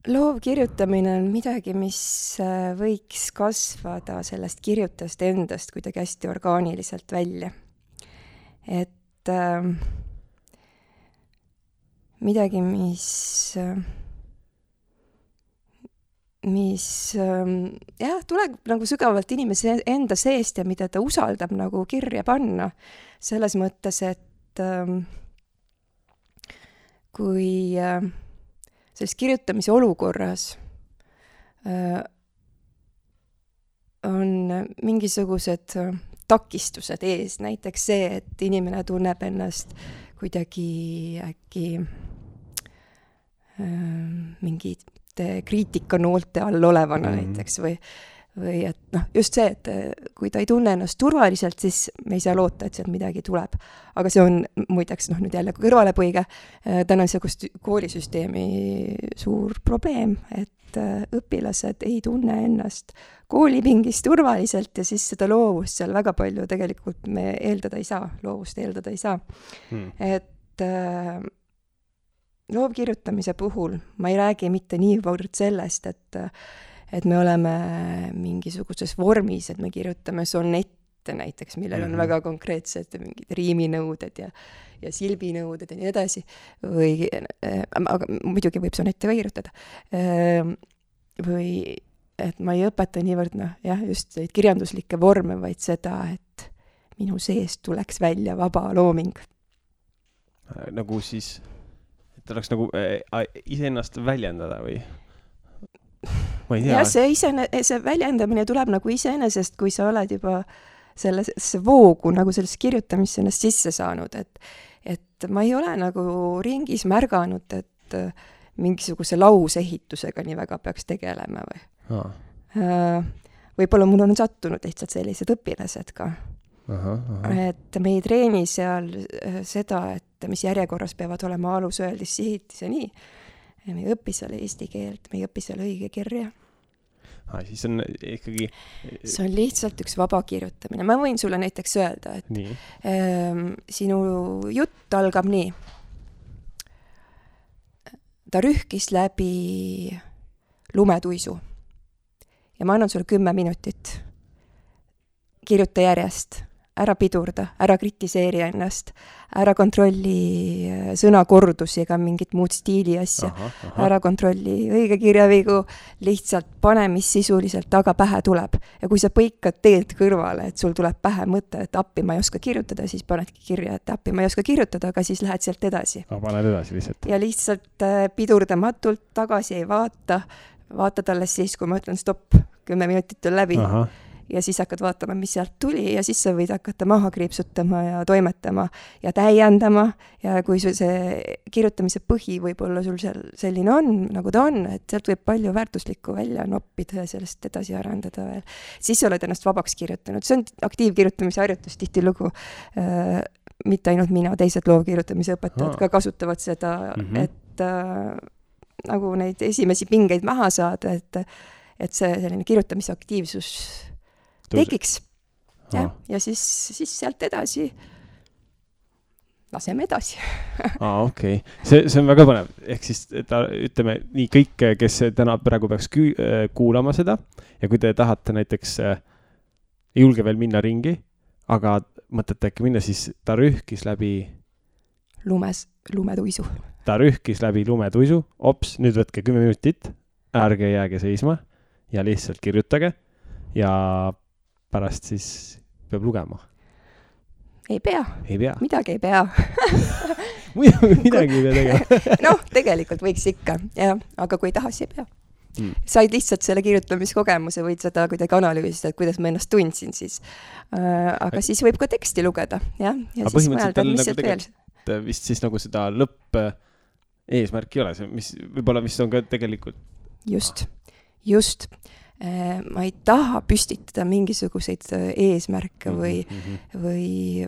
S2: Loovkirjutamine on midagi, mis võiks kasvada sellest kirjutast endast kuidagi hästi orgaaniliselt välja. Et midagi, mis tuleb nagu sügavalt inimese enda seest ja mida ta usaldab nagu kirja panna. Selles mõttes, et kui selles kirjutamise olukorras on mingisugused takistused ees, näiteks see, et inimene tunneb ennast kuidagi äkki mingite kriitikanoolte all olevana näiteks või et just see, et kui ta ei tunne ennast turvaliselt, siis me ei saa loota, et sealt midagi tuleb. Aga see on muideks nüüd jälle kõrvalepõige tänase koolisüsteemi suur probleem, et õpilased ei tunne ennast koolipingis turvaliselt ja siis seda loovust seal väga palju tegelikult me loovust eeldada ei saa. Et loovkirjutamise puhul ma ei räägi mitte niivõrd sellest, et me oleme mingisuguses vormis, et me kirjutame sonette näiteks, millel on väga konkreetsed mingid riiminõuded ja silbinõuded ja nii edasi. Aga muidugi võib sonette ka kirjutada. Või et ma ei õpeta niivõrd, just neid kirjanduslikke vorme, vaid seda, et minu seest tuleks välja vaba looming.
S1: Nagu siis, et oleks nagu iseennast väljendada või?
S2: Ja see väljendamine tuleb nagu iseenesest, kui sa oled juba sellesse voogu nagu sellest kirjutamisse ennast sisse saanud, et ma ei ole nagu ringis märganud, et mingisuguse lausehitusega nii väga peaks tegelema või. Võib-olla mul on sattunud lihtsalt sellised õpilased ka. Et me ei treeni seal seda, et mis järjekorras peavad olema alusöeldis sihitis ja nii. Me ei õpi seal eesti keelt, me ei õpi seal õige kirja.
S1: Siis on ikkagi...
S2: See on lihtsalt üks vaba kirjutamine. Ma võin sulle näiteks öelda, et sinu jutt algab nii. Ta rühkis läbi lumetuisu ja ma annan sulle 10 minutit. Kirjuta järjest. Ära pidurda, ära kritiseeri ennast, ära kontrolli sõnakordusi ega mingit muud stiili asja, ära kontrolli õige kirjavigu, lihtsalt pane, mis sisuliselt taga pähe tuleb. Ja kui sa põikad teelt kõrvale, et sul tuleb pähe mõte, et appi ma ei oska kirjutada, siis panedki kirja, et appi ma ei oska kirjutada, aga siis lähed sealt edasi.
S1: Paned edasi lihtsalt.
S2: Ja lihtsalt pidurdamatult tagasi ei vaata talle siis, kui ma ütlen stopp, 10 minutit on läbi. Ja siis hakkad vaatama, mis sealt tuli ja siis sa võid hakata maha kriipsutama ja toimetama ja täiendama ja kui see kirjutamise põhi võib-olla sul seal selline on, nagu ta on, et sealt võib palju väärtuslikku välja noppida ja sellest edasi arendada veel. Siis sa oled ennast vabaks kirjutanud. See on aktiivkirjutamise harjutus tihtilugu. Mitte ainult mina, teised loovkirjutamise õpetajad ka kasutavad seda, et nagu neid esimesi pingeid maha saada, et see selline kirjutamise aktiivsus tekiks. Ja siis sealt edasi laseme edasi.
S1: Okei. See on väga põnev. Ehk siis, ütleme nii kõik, kes täna praegu peaks kuulama seda ja kui te tahate näiteks ei julge veel minna ringi, aga mõtlete äkki minna, siis ta rühkis läbi
S2: lumetuisu.
S1: Ta rühkis läbi lumetuisu, ops, nüüd võtke 10 minutit, ärge jääge seisma ja lihtsalt kirjutage ja pärast siis peab lugema.
S2: Ei pea. Midagi ei pea.
S1: Midagi ei pea tegema.
S2: Noh, tegelikult võiks ikka, jah, aga kui ei taha, siis ei pea. Said lihtsalt selle kirjutamiskogemuse, võid seda kuidagi analüüsida, et kuidas ma ennast tundsin siis. Aga siis võib ka teksti lugeda, jah. Ja siis mõelda, mis see veel.
S1: Vist siis nagu seda lõpp eesmärk ei ole, võib-olla mis on ka tegelikult...
S2: Just. Ma ei taha püstitada mingisuguseid eesmärke või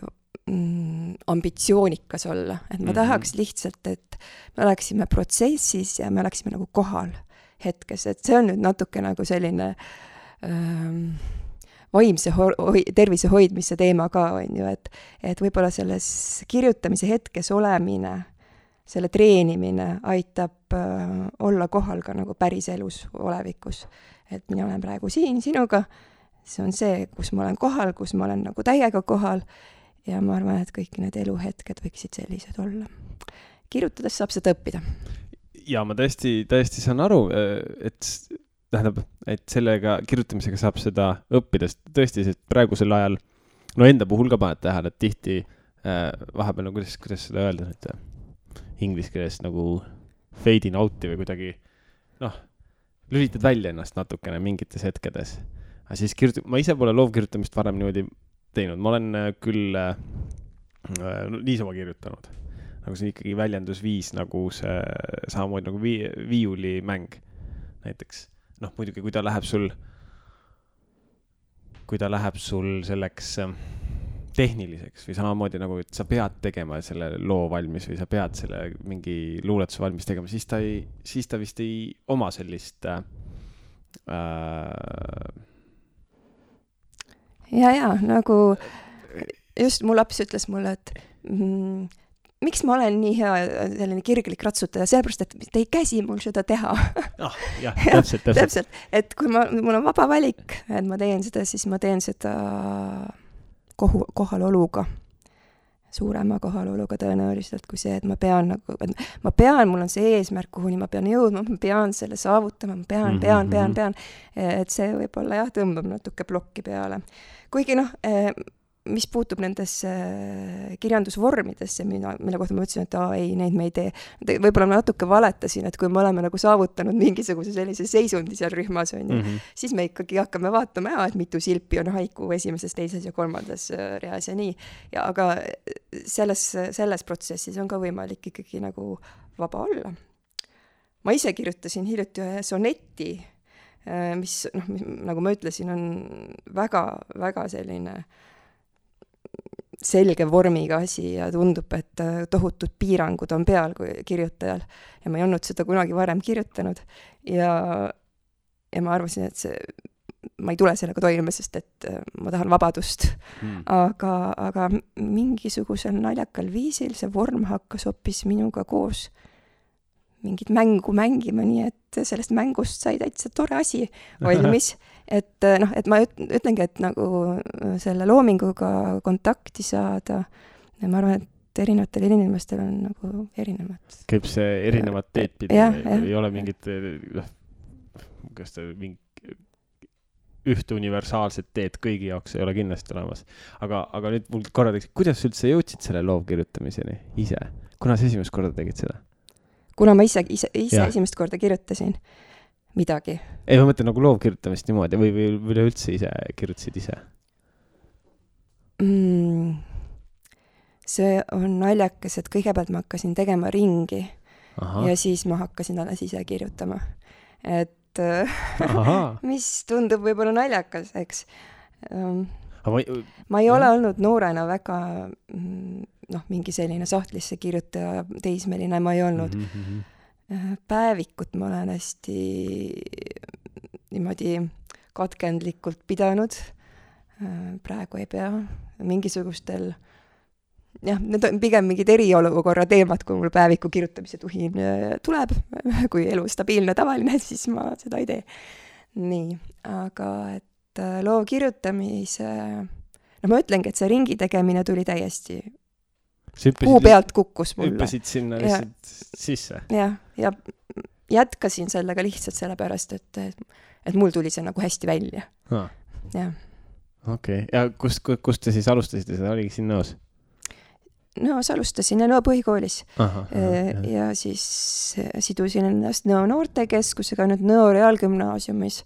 S2: ambitsioonikas olla. Et ma tahaks lihtsalt, et me oleksime protsessis ja me oleksime nagu kohal hetkes. Et see on nüüd natuke nagu selline vaimse tervise hoidmise teema ka, on ju, et võib-olla selles kirjutamise hetkes olemine, selle treenimine aitab olla kohal ka nagu päris elus olevikus. Et mina olen praegu siin sinuga, see on see, kus ma olen kohal, kus ma olen nagu täiega kohal ja ma arvan, et kõik need eluhetked võiksid sellised olla. Kirjutades saab seda õppida.
S1: Ja ma tõesti saan aru, et sellega kirjutamisega saab seda õppida, tõesti, sest praegusel ajal, no enda puhul ka paned tähele, et tihti vahepeal, no kuidas seda öelda nüüd inglise keeles nagu fade in out'i või kuidagi, lülitad välja ennast natukene mingites hetkedes. Aga siis ma ise pole loovkirjutamist varem niimoodi teinud. Ma olen küll niisama kirjutanud. Nagu see ikkagi väljendusviis nagu see samamoodi nagu viiulimäng näiteks. Muidugi, kui ta läheb sul selleks tehniliseks või samamoodi nagu, et sa pead tegema selle loo valmis või sa pead selle mingi luuletuse valmis tegema, siis ta vist ei oma sellist
S2: Ja, nagu just mu laps ütles mulle, et miks ma olen nii hea selline kirglik ratsutaja, sellepärast, et te ei käsi mul seda teha. Täpselt. Et kui mul on vaba valik, et ma teen seda, siis ma teen seda kohaloluga, suurema kohaloluga tõenäoliselt kui see, et ma pean, mul on see eesmärk, kuhuni ma pean jõudma, ma pean selle saavutama, ma pean. Et see võib-olla jah, tõmbab natuke plokki peale. Kuigi mis puutub nendesse kirjandusvormidesse, mille kohta ma ütlesin, et ei, neid me ei tee. Võib-olla ma natuke valetasin, et kui me oleme nagu saavutanud mingisuguse sellise seisundi seal rühmas, siis me ikkagi hakkame vaatama, et mitu silpi on haiku esimeses, teises ja kolmandas reas ja nii. Aga selles protsessis on ka võimalik ikkagi nagu vaba olla. Ma ise kirjutasin hiljuti ühe soneti, mis, nagu ma ütlesin, on väga, väga selline selge vormiga asi ja tundub, et tohutud piirangud on peal kui kirjutajal. Ja ma ei olnud seda kunagi varem kirjutanud. Ja ma arvasin, et ma ei tule sellega toime, sest et ma tahan vabadust. Aga mingisugusel naljakal viisil see vorm hakkas hoopis minuga koos mingit mängu mängima, nii et sellest mängust sai täitsa tore asi valmis. Et ma ütlengi, et nagu selle loominguga kontakti saada, ma arvan, et erinevatel inimestel on nagu erinevad.
S1: Käib see erinevad teed pidi, ei ole mingit ühte universaalset teed kõigi jaoks ei ole kindlasti olemas. Aga nüüd mul korra teeks, kuidas üldse jõudsid selle loovkirjutamiseni ise? Kuna sa esimest korda tegid seda?
S2: Kuna ma ise esimest korda kirjutasin midagi.
S1: Ei, ma mõtlen nagu loovkirjutamist niimoodi või üleüldse ise kirjutasid ise?
S2: See on naljakas, et kõigepealt ma hakkasin tegema ringi. Ja siis ma hakkasin alles ise kirjutama. Et mis tundub võib-olla naljakas, eks. Ma ei ole olnud noorena väga mingi selline sahtlisse kirjutaja, teismeline ma ei olnud. Päevikut ma olen hästi niimoodi katkendlikult pidanud. Praegu ei pea. Mingisugustel jah, need on pigem mingid eriolukorra teemad, kui mul päeviku kirjutamise tuhin tuleb, kui elu stabiilne tavaline, siis ma seda ei tee. Nii, aga et loo kirjutamise, no ma ütlengi, et see ringi tegemine tuli täiesti kuu pealt kukkus mulle.
S1: Hüppasid sinna lihtsalt sisse.
S2: Ja jätkasin sellega lihtsalt sellepärast, et mul tuli see nagu hästi välja. Jah.
S1: Okei. Ja kust te siis alustasite? Seda oligi siin Nõos?
S2: Nõos alustasin ja Nõo põhikoolis. Ja siis sidusin ennast Nõo noortekeskusega nüüd Nõo reaalgümnaasiumis.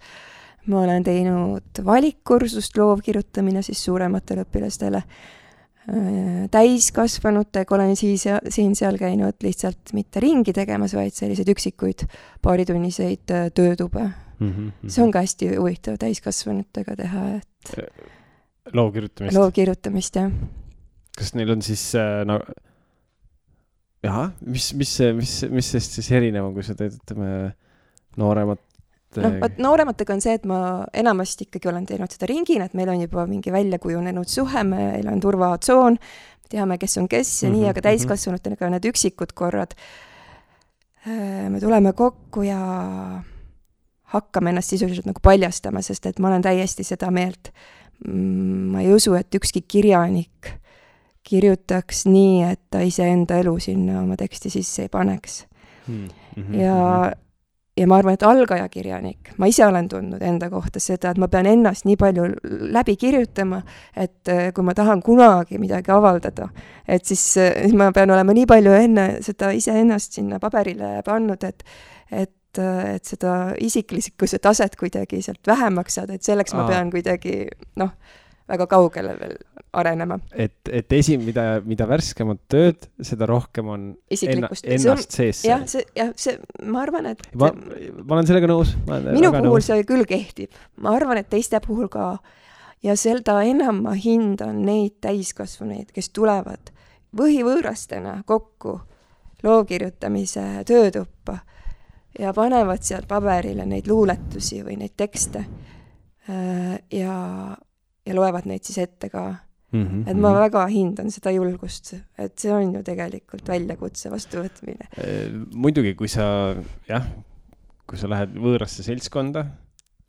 S2: Ma olen teinud valikkursust loovkirjutamine siis suurematele õpilastele. Täiskasvanutega olen siin seal käinud lihtsalt mitte ringi tegemas, vaid selliseid üksikuid paaritunniseid töötube. See on ka hästi huvitav täiskasvanutega teha, et loovkirjutamist, jah.
S1: Kas neil on siis mis sest siis erinev on, kui sa teed, ütleme, nooremat?
S2: Noorematega on see, et ma enamasti ikkagi olen teinud seda ringina, et meil on juba mingi välja kujunenud suhe, meil on turvatsoon, teame, kes on kes ja nii, aga täiskasvanutega need üksikud korrad. Me tuleme kokku ja hakkame ennast sisuliselt nagu paljastama, sest et ma olen täiesti seda meelt. Ma ei usu, et ükski kirjanik kirjutaks nii, et ta iseenda elu sinna oma teksti sisse ei paneks. Ja ma arvan, et algaja kirjanik, ma ise olen tundnud enda kohta seda, et ma pean ennast nii palju läbi kirjutama, et kui ma tahan kunagi midagi avaldada, et siis ma pean olema nii palju enne seda ise ennast sinna paberile pannud, et seda isiklikkuse taset kuidagi sealt vähemaks saada, et selleks ma pean kuidagi, väga kaugele veel arenema.
S1: Et mida värskemat tööd, seda rohkem on ennast sees.
S2: Ma arvan, et
S1: ma olen sellega nõus.
S2: Minu puhul see küll kehtib. Ma arvan, et teiste puhul ka. Ja seda enam ma hindan neid täiskasvanuid, kes tulevad võhivõõrastena kokku loovkirjutamise töötuppa ja panevad sealt paberile neid luuletusi või neid tekste ja loevad neid siis ette ka. Et ma väga hindan seda julgust, et see on ju tegelikult väljakutse vastuvõtmine.
S1: Muidugi, kui sa lähed võõrasse seltskonda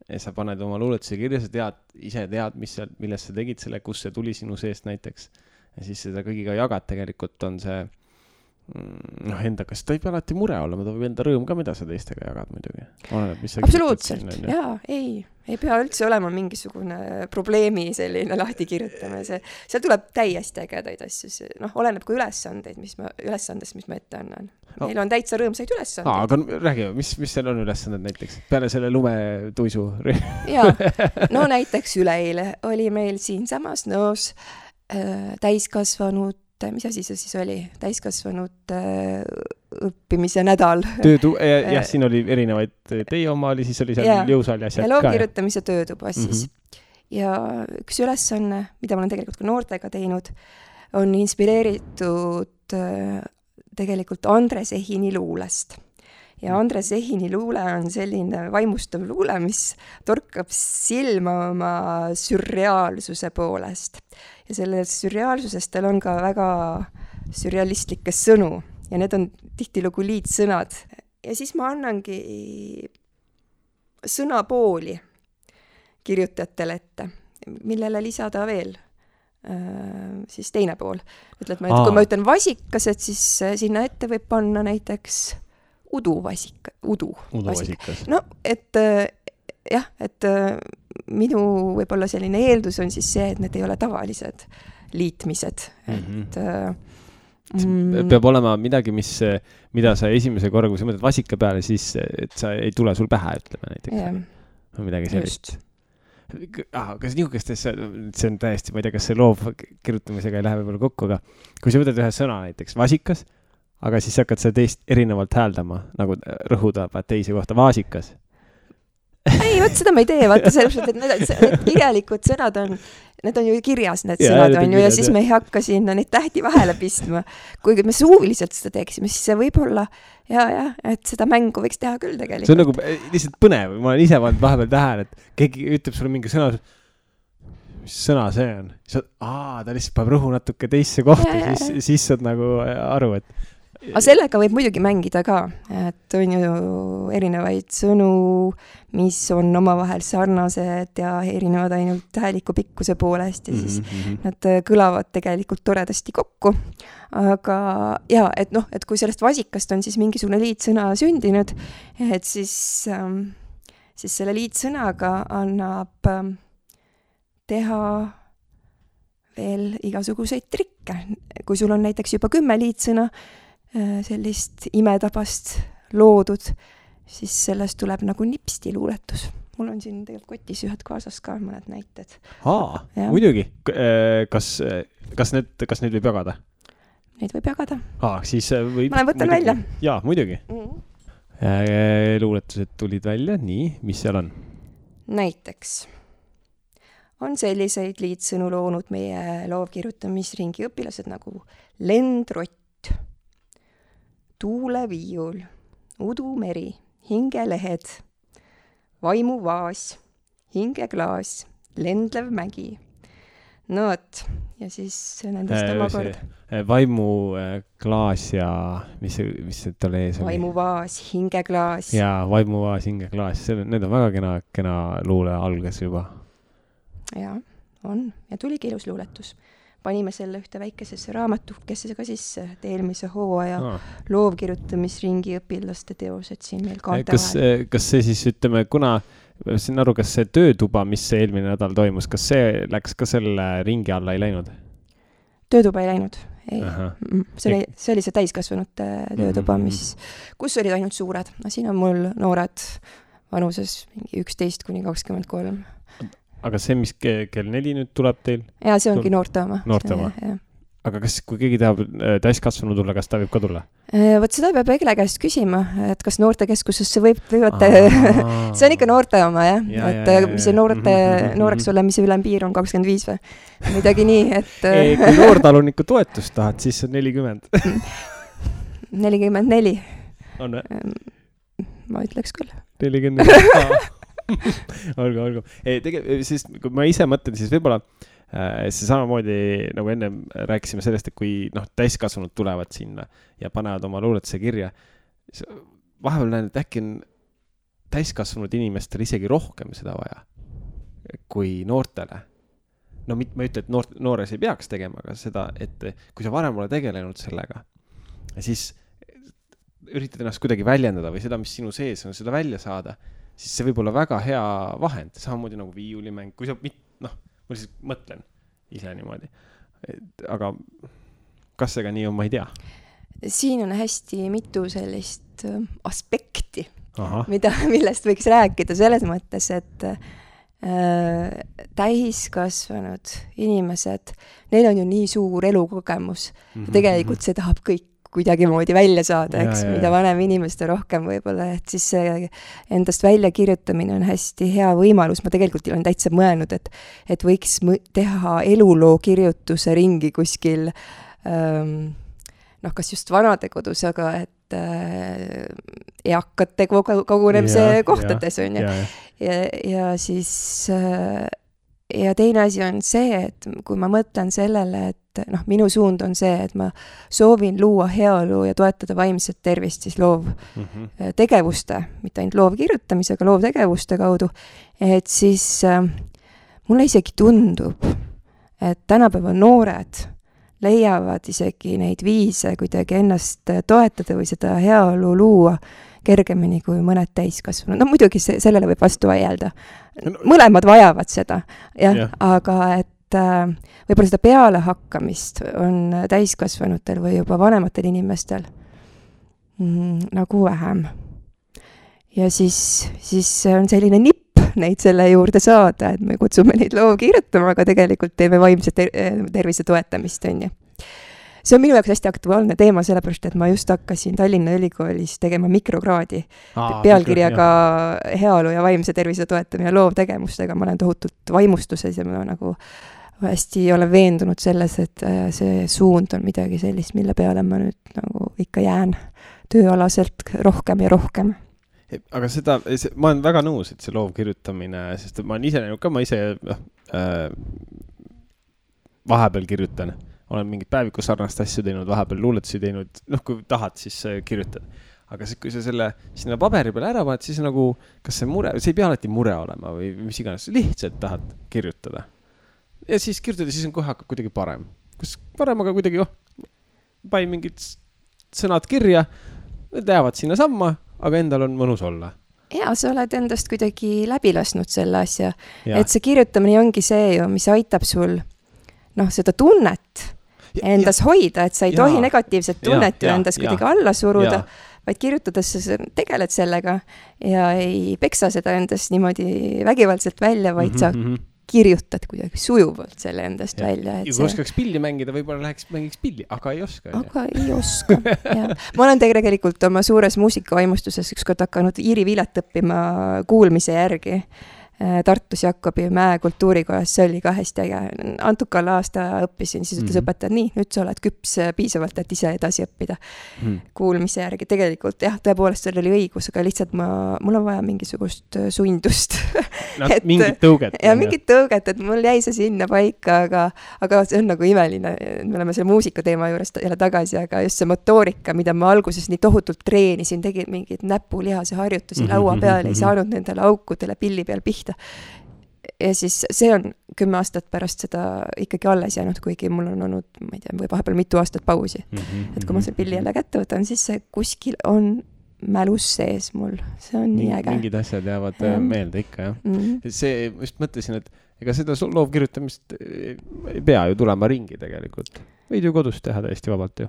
S1: ja sa paned oma luuletuse kirja, sa ise tead, millest sa tegid selle, kus see tuli sinu seest näiteks. Ja siis seda kõigiga jagad, tegelikult on see endaga, see võib alati mure olla, ma võib enda rõõm ka, mida sa teistega jagad muidugi.
S2: Absoluutselt, ei pea üldse olema mingisugune probleemi selline lahti kirjutame. Seal tuleb täiesti ägedaid asju, oleneb kui ülesandest, mis ma ette annan. Meil on täitsa rõõmsaid ülesandeid.
S1: Aga räägi, mis seal on ülesanded näiteks? Peale selle lumetuisu?
S2: Näiteks üleeile oli meil siin samas Nõos täiskasvanud, mis asi see siis oli? Täiskasvanud õppimise nädal.
S1: Siin oli erinevaid, teie oma oli, siis oli seal jõusaal ja asjad ka.
S2: Ja loovkirjutamise töötuba siis. Ja üks ülesanne, mida ma olen tegelikult ka noortega teinud, on inspireeritud tegelikult Andres Ehini luulest. Ja Andres Ehini luule on selline vaimustav luule, mis torkab silma oma sürreaalsuse poolest. Ja sellest sürreaalsusest tal on ka väga sürrealistlikke sõnu ja need on tihtilugu liitsõnad. Ja siis ma annangi sõnapooli kirjutajatele ette, millele lisada veel siis teine pool. Kui ma ütlen vasikas, et siis sinna ette võib panna näiteks uduvasikas. Et minu võib-olla selline eeldus on siis see, et need ei ole tavalised liitmised.
S1: Peab olema midagi, mida sa esimese korra, kui sa mõtled vasika peale, siis et sa ei tule sul pähe, ütleme näiteks. Midagi sellist. Kas niisugustes, see on täiesti, ma ei tea, kas see loov kirjutamisega ei lähe võib-olla kokku, aga kui sa võtad ühe sõna näiteks vasikas, aga siis hakkad seda teist erinevalt hääldama, nagu rõhuda teise kohta vaasikas.
S2: Ei, seda ma ei tee, vaata sellepärast, et need kirjalikud sõnad need on ju kirjas, need sõnad on ju, ja siis me ei hakka sinna neid tähti vahele pistma. Kuigi me suuliselt seda teeksime, siis see võib olla, et seda mängu võiks teha küll tegelikult.
S1: See on nagu lihtsalt põnev, ma olen ise vahepeal tähele, et keegi ütleb sulle mingi sõna, mis sõna see on? Ta lihtsalt paneb rõhu natuke teisse kohta, siis saad nagu aru, et
S2: aga sellega võib muidugi mängida ka, et on ju erinevaid sõnu, mis on omavahel sarnased ja erinevad ainult hääliku pikkuse poolest ja siis nad kõlavad tegelikult toredasti kokku. Aga jaa, et noh, et kui sellest vasikast on siis mingisugune liitsõna sündinud, et siis selle liitsõnaga annab teha veel igasuguseid trikke. Kui sul on näiteks juba 10 liitsõna, sellist imetabast loodud, siis sellest tuleb nagu nipsti luuletus. Mul on siin tegelikult kotis ühed kaasas ka mõned näited.
S1: Muidugi. Kas neid võib jagada?
S2: Neid võib jagada.
S1: Siis võib...
S2: Ma võtan välja.
S1: Jaa, muidugi. Luuletused tulid välja. Nii, mis seal on? Näiteks
S2: on selliseid liitsõnu loonud meie loovkirjutamisringi õpilased nagu lendrott, tuuleviiul, udumeri, hingelehed, vaimuvaas, hingeklaas, lendlev mägi. No võt, ja siis nendest omakord.
S1: Vaimuklaas ja mis see talle ees oli?
S2: Vaimuvaas, hingeklaas.
S1: Jaa, vaimuvaas, hingeklaas. Need on väga kena luule algas juba. Jaa,
S2: on. Ja tuligi ilus luuletus. Panime selle ühte väikesesse raamatukesse ka sisse, et eelmise hooaja loovkirjutamisringi õpilaste teosed siin meil kaante vahel.
S1: Kas see siis, ütleme, kuna siin aru, kas see töötuba, mis see eelmine nädal toimus, kas see läks ka selle ringi alla ei läinud?
S2: Töötuba ei läinud. Ei. See oli see täiskasvanute töötuba, kus olid ainult suured. Siin on mul noored vanuses 11–23.
S1: Aga see, mis kell 4 nüüd tuleb teil?
S2: Jaa, see ongi noorte oma.
S1: Noorte oma. Aga kui keegi tahab täiskasvanu tulla, kas ta võib ka tulla?
S2: Võt seda peab Egle käest küsima, et kas noortekeskusesse võivad... See on ikka noorte oma, jah? Et mis see nooreks olemise ülempiir on 25 või? Midagi nii, et...
S1: Kui noortaluniku toetust tahad, siis on 40.
S2: 44.
S1: On või?
S2: Ma ütleks küll.
S1: 44. olgu. Siis, kui ma ise mõtlen, siis võib-olla see samamoodi, nagu enne rääkisime sellest, et kui täiskasvanud tulevad sinna ja panevad oma luuletuse kirja, vahepeal näen, et äkki on täiskasvanud inimestel isegi rohkem seda vaja kui noortele. Ma ei ütle, et noores ei peaks tegema, aga seda, et kui sa varem ole tegelenud sellega, siis üritad ennast kuidagi väljendada või seda, mis sinu sees on, seda välja saada, siis see võib olla väga hea vahend, samamoodi nagu viiulimäng, kui sa, ma lihtsalt mõtlen ise niimoodi. Aga kas see ka nii on, ma ei tea.
S2: Siin on hästi mitu sellist aspekti, millest võiks rääkida selles mõttes, et täiskasvanud inimesed, neil on ju nii suur elukogemus. Tegelikult see tahab kõik kuidagi moodi välja saada, eks, mida vanem inimeste rohkem võib-olla, et siis see endast välja kirjutamine on hästi hea võimalus. Ma tegelikult olen täitsa mõelnud, et võiks teha eluloo kirjutuse ringi kuskil, kas just vanadekodus, aga et eakate kogunemise kohtades on ju. Ja siis... Ja teine asi on see, et kui ma mõtlen sellele, et minu suund on see, et ma soovin luua heaolu ja toetada vaimset tervist siis loovtegevuste, mitte ainult loovkirjutamisega, loovtegevuste kaudu, et siis mulle isegi tundub, et tänapäeva noored leiavad isegi neid viise kuidagi ennast toetada või seda heaolu luua kergemini kui mõned täiskasvanud. Muidugi sellele võib vastu vaielda. Mõlemad vajavad seda, aga et võib-olla seda peale hakkamist on täiskasvanutel või juba vanematel inimestel nagu vähem. Ja siis on selline nipp neid selle juurde saada, et me kutsume neid loo kirjutama, aga tegelikult teeme vaimse tervise toetamist, on ju. See on minu jaoks hästi aktuaalne teema, sellepärast, et ma just hakkasin Tallinna Ülikoolis tegema mikrokraadi pealkirjaga heaolu ja vaimse tervise toetamine loovtegevustega. Ma olen tohutult vaimustuses ja ma nagu hästi olen veendunud selles, et see suund on midagi sellist, mille peale ma nüüd nagu ikka jään tööalaselt rohkem ja rohkem.
S1: aga ma olen väga nõus, et see loovkirjutamine, sest ma olen ise näinud ka, ma ise vahepeal kirjutan, olen mingit päevikus sarnast asju teinud, vahepeal luuletusi teinud, kui tahad, siis kirjutad. Aga kui sa selle sinna paberi peale ära paned, siis nagu, kas see mure, see ei pea alati mure olema või mis iganes, lihtsalt tahad kirjutada. Ja siis kirjutada, siis on kohe hakkab kuidagi parem. Kus parem, aga kuidagi, panin mingid sõnad kirja, need jäävad sinna samma, aga endal on mõnus olla.
S2: Ja, sa oled endast kuidagi läbi lasknud selle asja. Et see kirjutamine ongi see ju, mis aitab sul seda tunnet endas hoida, et sa ei tohi negatiivset tunnet ju endas kuidagi alla suruda, vaid kirjutades sa tegeled sellega ja ei peksa seda endast niimoodi vägivaldselt välja, vaid sa kirjutad kuidagi sujuvalt selle endast välja.
S1: Ja kui oskaks pilli mängida, võib-olla mängiks pilli, aga ei oska.
S2: Aga ei oska, jah. Ma olen tegelikult oma suures muusikavaimustuses ükskord hakanud Iiri Vilet õppima kuulmise järgi Tartus Jakobi Mäe kultuurikojas, see oli ka hästi äge. Antukal aasta õppisin, siis ütles õpetaja, nii, nüüd sa oled küps piisavalt, et ise edasi õppida kuulmise järgi. Tegelikult jah, tõepoolest seal oli õigus, aga lihtsalt mul on vaja mingisugust sundust.
S1: Mingit tõuget.
S2: Ja mingit tõuget, et mul jäi see sinna paika, aga see on nagu imeline. Me oleme selle muusika teema juures jälle tagasi, aga just see motoorika, mida ma alguses nii tohutult treenisin, tegin mingid näpulihase harjutusi laua peal, ei saanud nendele aukudele pilli peal pihta. Ja siis see on 10 aastat pärast seda ikkagi alles jäänud, kuigi mul on olnud, ma ei tea, või vahepeal mitu aastat pausi. Et kui ma see pilli jälle kätte võtan, siis see kuskil on mälus sees mul. See on nii äge.
S1: Mingid asjad jäävad meelde ikka, jah. See, just mõtlesin, et ega seda loovkirjutamist ei pea ju tulema ringi tegelikult. Võid ju kodus teha täiesti vabalt ju.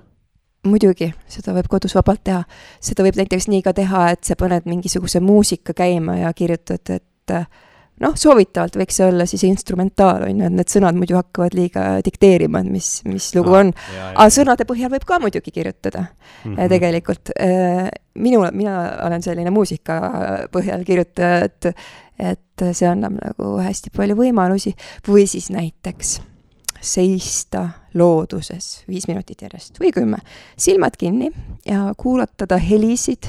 S2: Muidugi, seda võib kodus vabalt teha. Seda võib näiteks nii ka teha, et sa paned mingisuguse muusika käima ja kirjutad, et soovitavalt võiks see olla siis instrumentaal, et need sõnad muidu hakkavad liiga dikteerima, mis lugu on. Aga sõnade põhjal võib ka muidugi kirjutada tegelikult. Mina olen selline muusika põhjal kirjutaja, et see annab nagu hästi palju võimalusi. Või siis näiteks seista looduses 5 minutit järjest või 10. Silmad kinni ja kuulatada helisid.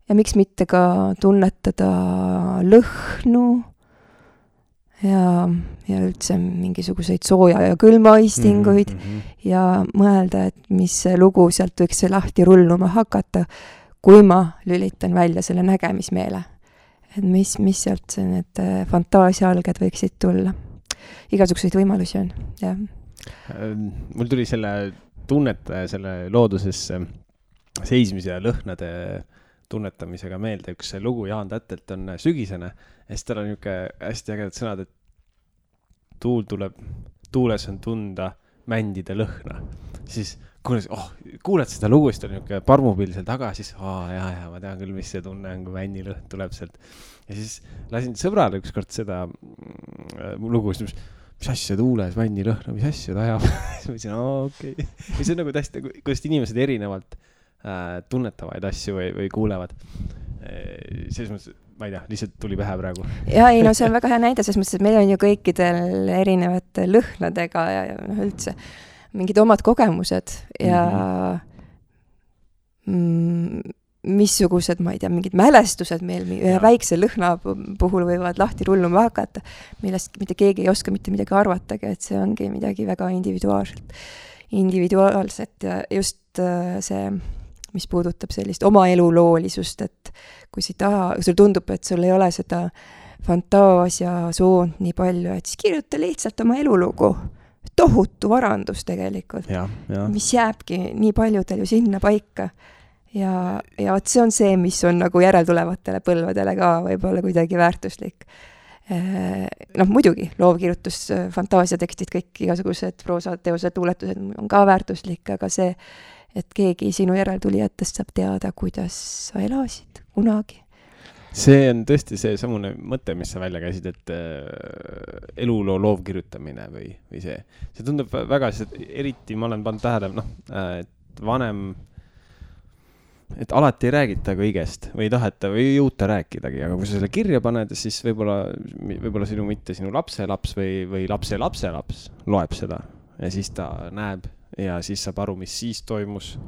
S2: Ja miks mitte ka tunnetada lõhnu ja üldse mingisuguseid sooja ja külmaistinguid ja mõelda, et mis lugu sealt võiks see lahti rulluma hakata, kui ma lülitan välja selle nägemismeele. Et mis sealt need fantaasiaalged võiksid tulla. Igasuguseid võimalusi on, jah.
S1: Mul tuli selle tunnetaja, selle looduses seismise ja lõhnade tunnetamisega meelde, üks lugu Jaan Tätelt on Sügisene ja siis tal on niisugune hästi ägedad sõnad, et tuul tuleb, tuules on tunda mändide lõhna. Siis kuuled seda lugu, siis ta on niisugune parmupill seal taga, siis ja ma tean küll, mis see tunne on, kui männi lõhn tuleb sealt. Ja siis lasin sõbrale ükskord seda lugu, mis asja tuules männi lõhna, mis asja ta ajab. Siis ma ütlesin, okei. Ja see on nagu täiesti, kuidas inimesed erinevalt tunnetavaid asju või kuulevad. Selles mõttes, ma ei tea, lihtsalt tuli pähe praegu.
S2: Ja ei, see on väga hea näide, selles mõttes, et meil on ju kõikidel erinevate lõhnadega ja üldse mingid omad kogemused ja missugused, ma ei tea, mingid mälestused meil väikse lõhna puhul võivad lahti rulluma hakata, millest mitte keegi ei oska mitte midagi arvatagi, et see ongi midagi väga individuaalset ja just see mis puudutab sellist oma eluloolisust, et kui sul tundub, et sul ei ole seda fantaasia soont nii palju, et siis kirjuta lihtsalt oma elulugu. Tohutu varandus tegelikult, mis jääbki nii paljudel ju sinna paika. Ja see on see, mis on nagu järeltulevatele põlvedele ka võib-olla kuidagi väärtuslik. Muidugi, loovkirjutus, fantaasiatekstid, kõik igasugused proosateosed, luuletused on ka väärtuslik, aga see et keegi sinu järeltulijatest saab teada, kuidas sa elasid kunagi.
S1: See on tõesti see samune mõte, mis sa välja käisid, et eluloo loovkirjutamine või see. See tundub väga, eriti ma olen pannud tähele, et vanem, et alati ei räägita kõigest või ei taheta või ei jõuta rääkidagi, aga kui sa selle kirja paned, siis võib-olla sinu lapselaps või lapse lapselaps loeb seda ja siis ta näeb ja siis saab aru, mis siis toimus,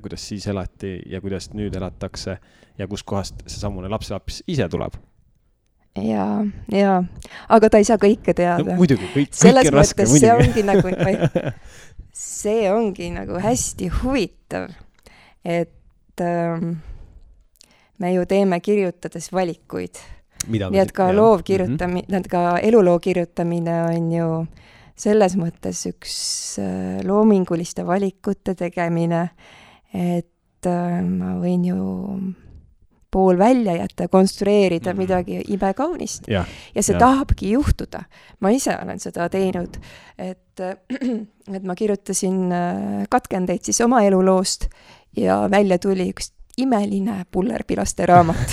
S1: kuidas siis elati ja kuidas nüüd elatakse ja kuskohast see samune lapselaps ise tuleb.
S2: Ja, aga ta ei saa kõike teada.
S1: No, muidugi, kõik
S2: selles
S1: on raske,
S2: mõttes see ongi nagu hästi huvitav, et me ju teeme kirjutades valikuid. Nii et ka ka eluloo kirjutamine on ju selles mõttes üks loominguliste valikute tegemine, et ma võin ju pool välja jätta, konstrueerida midagi imekaunist. Ja see tahabki juhtuda. Ma ise olen seda teinud, et ma kirjutasin katkendeid siis oma eluloost ja välja tuli üks imeline pullerpilaste raamat,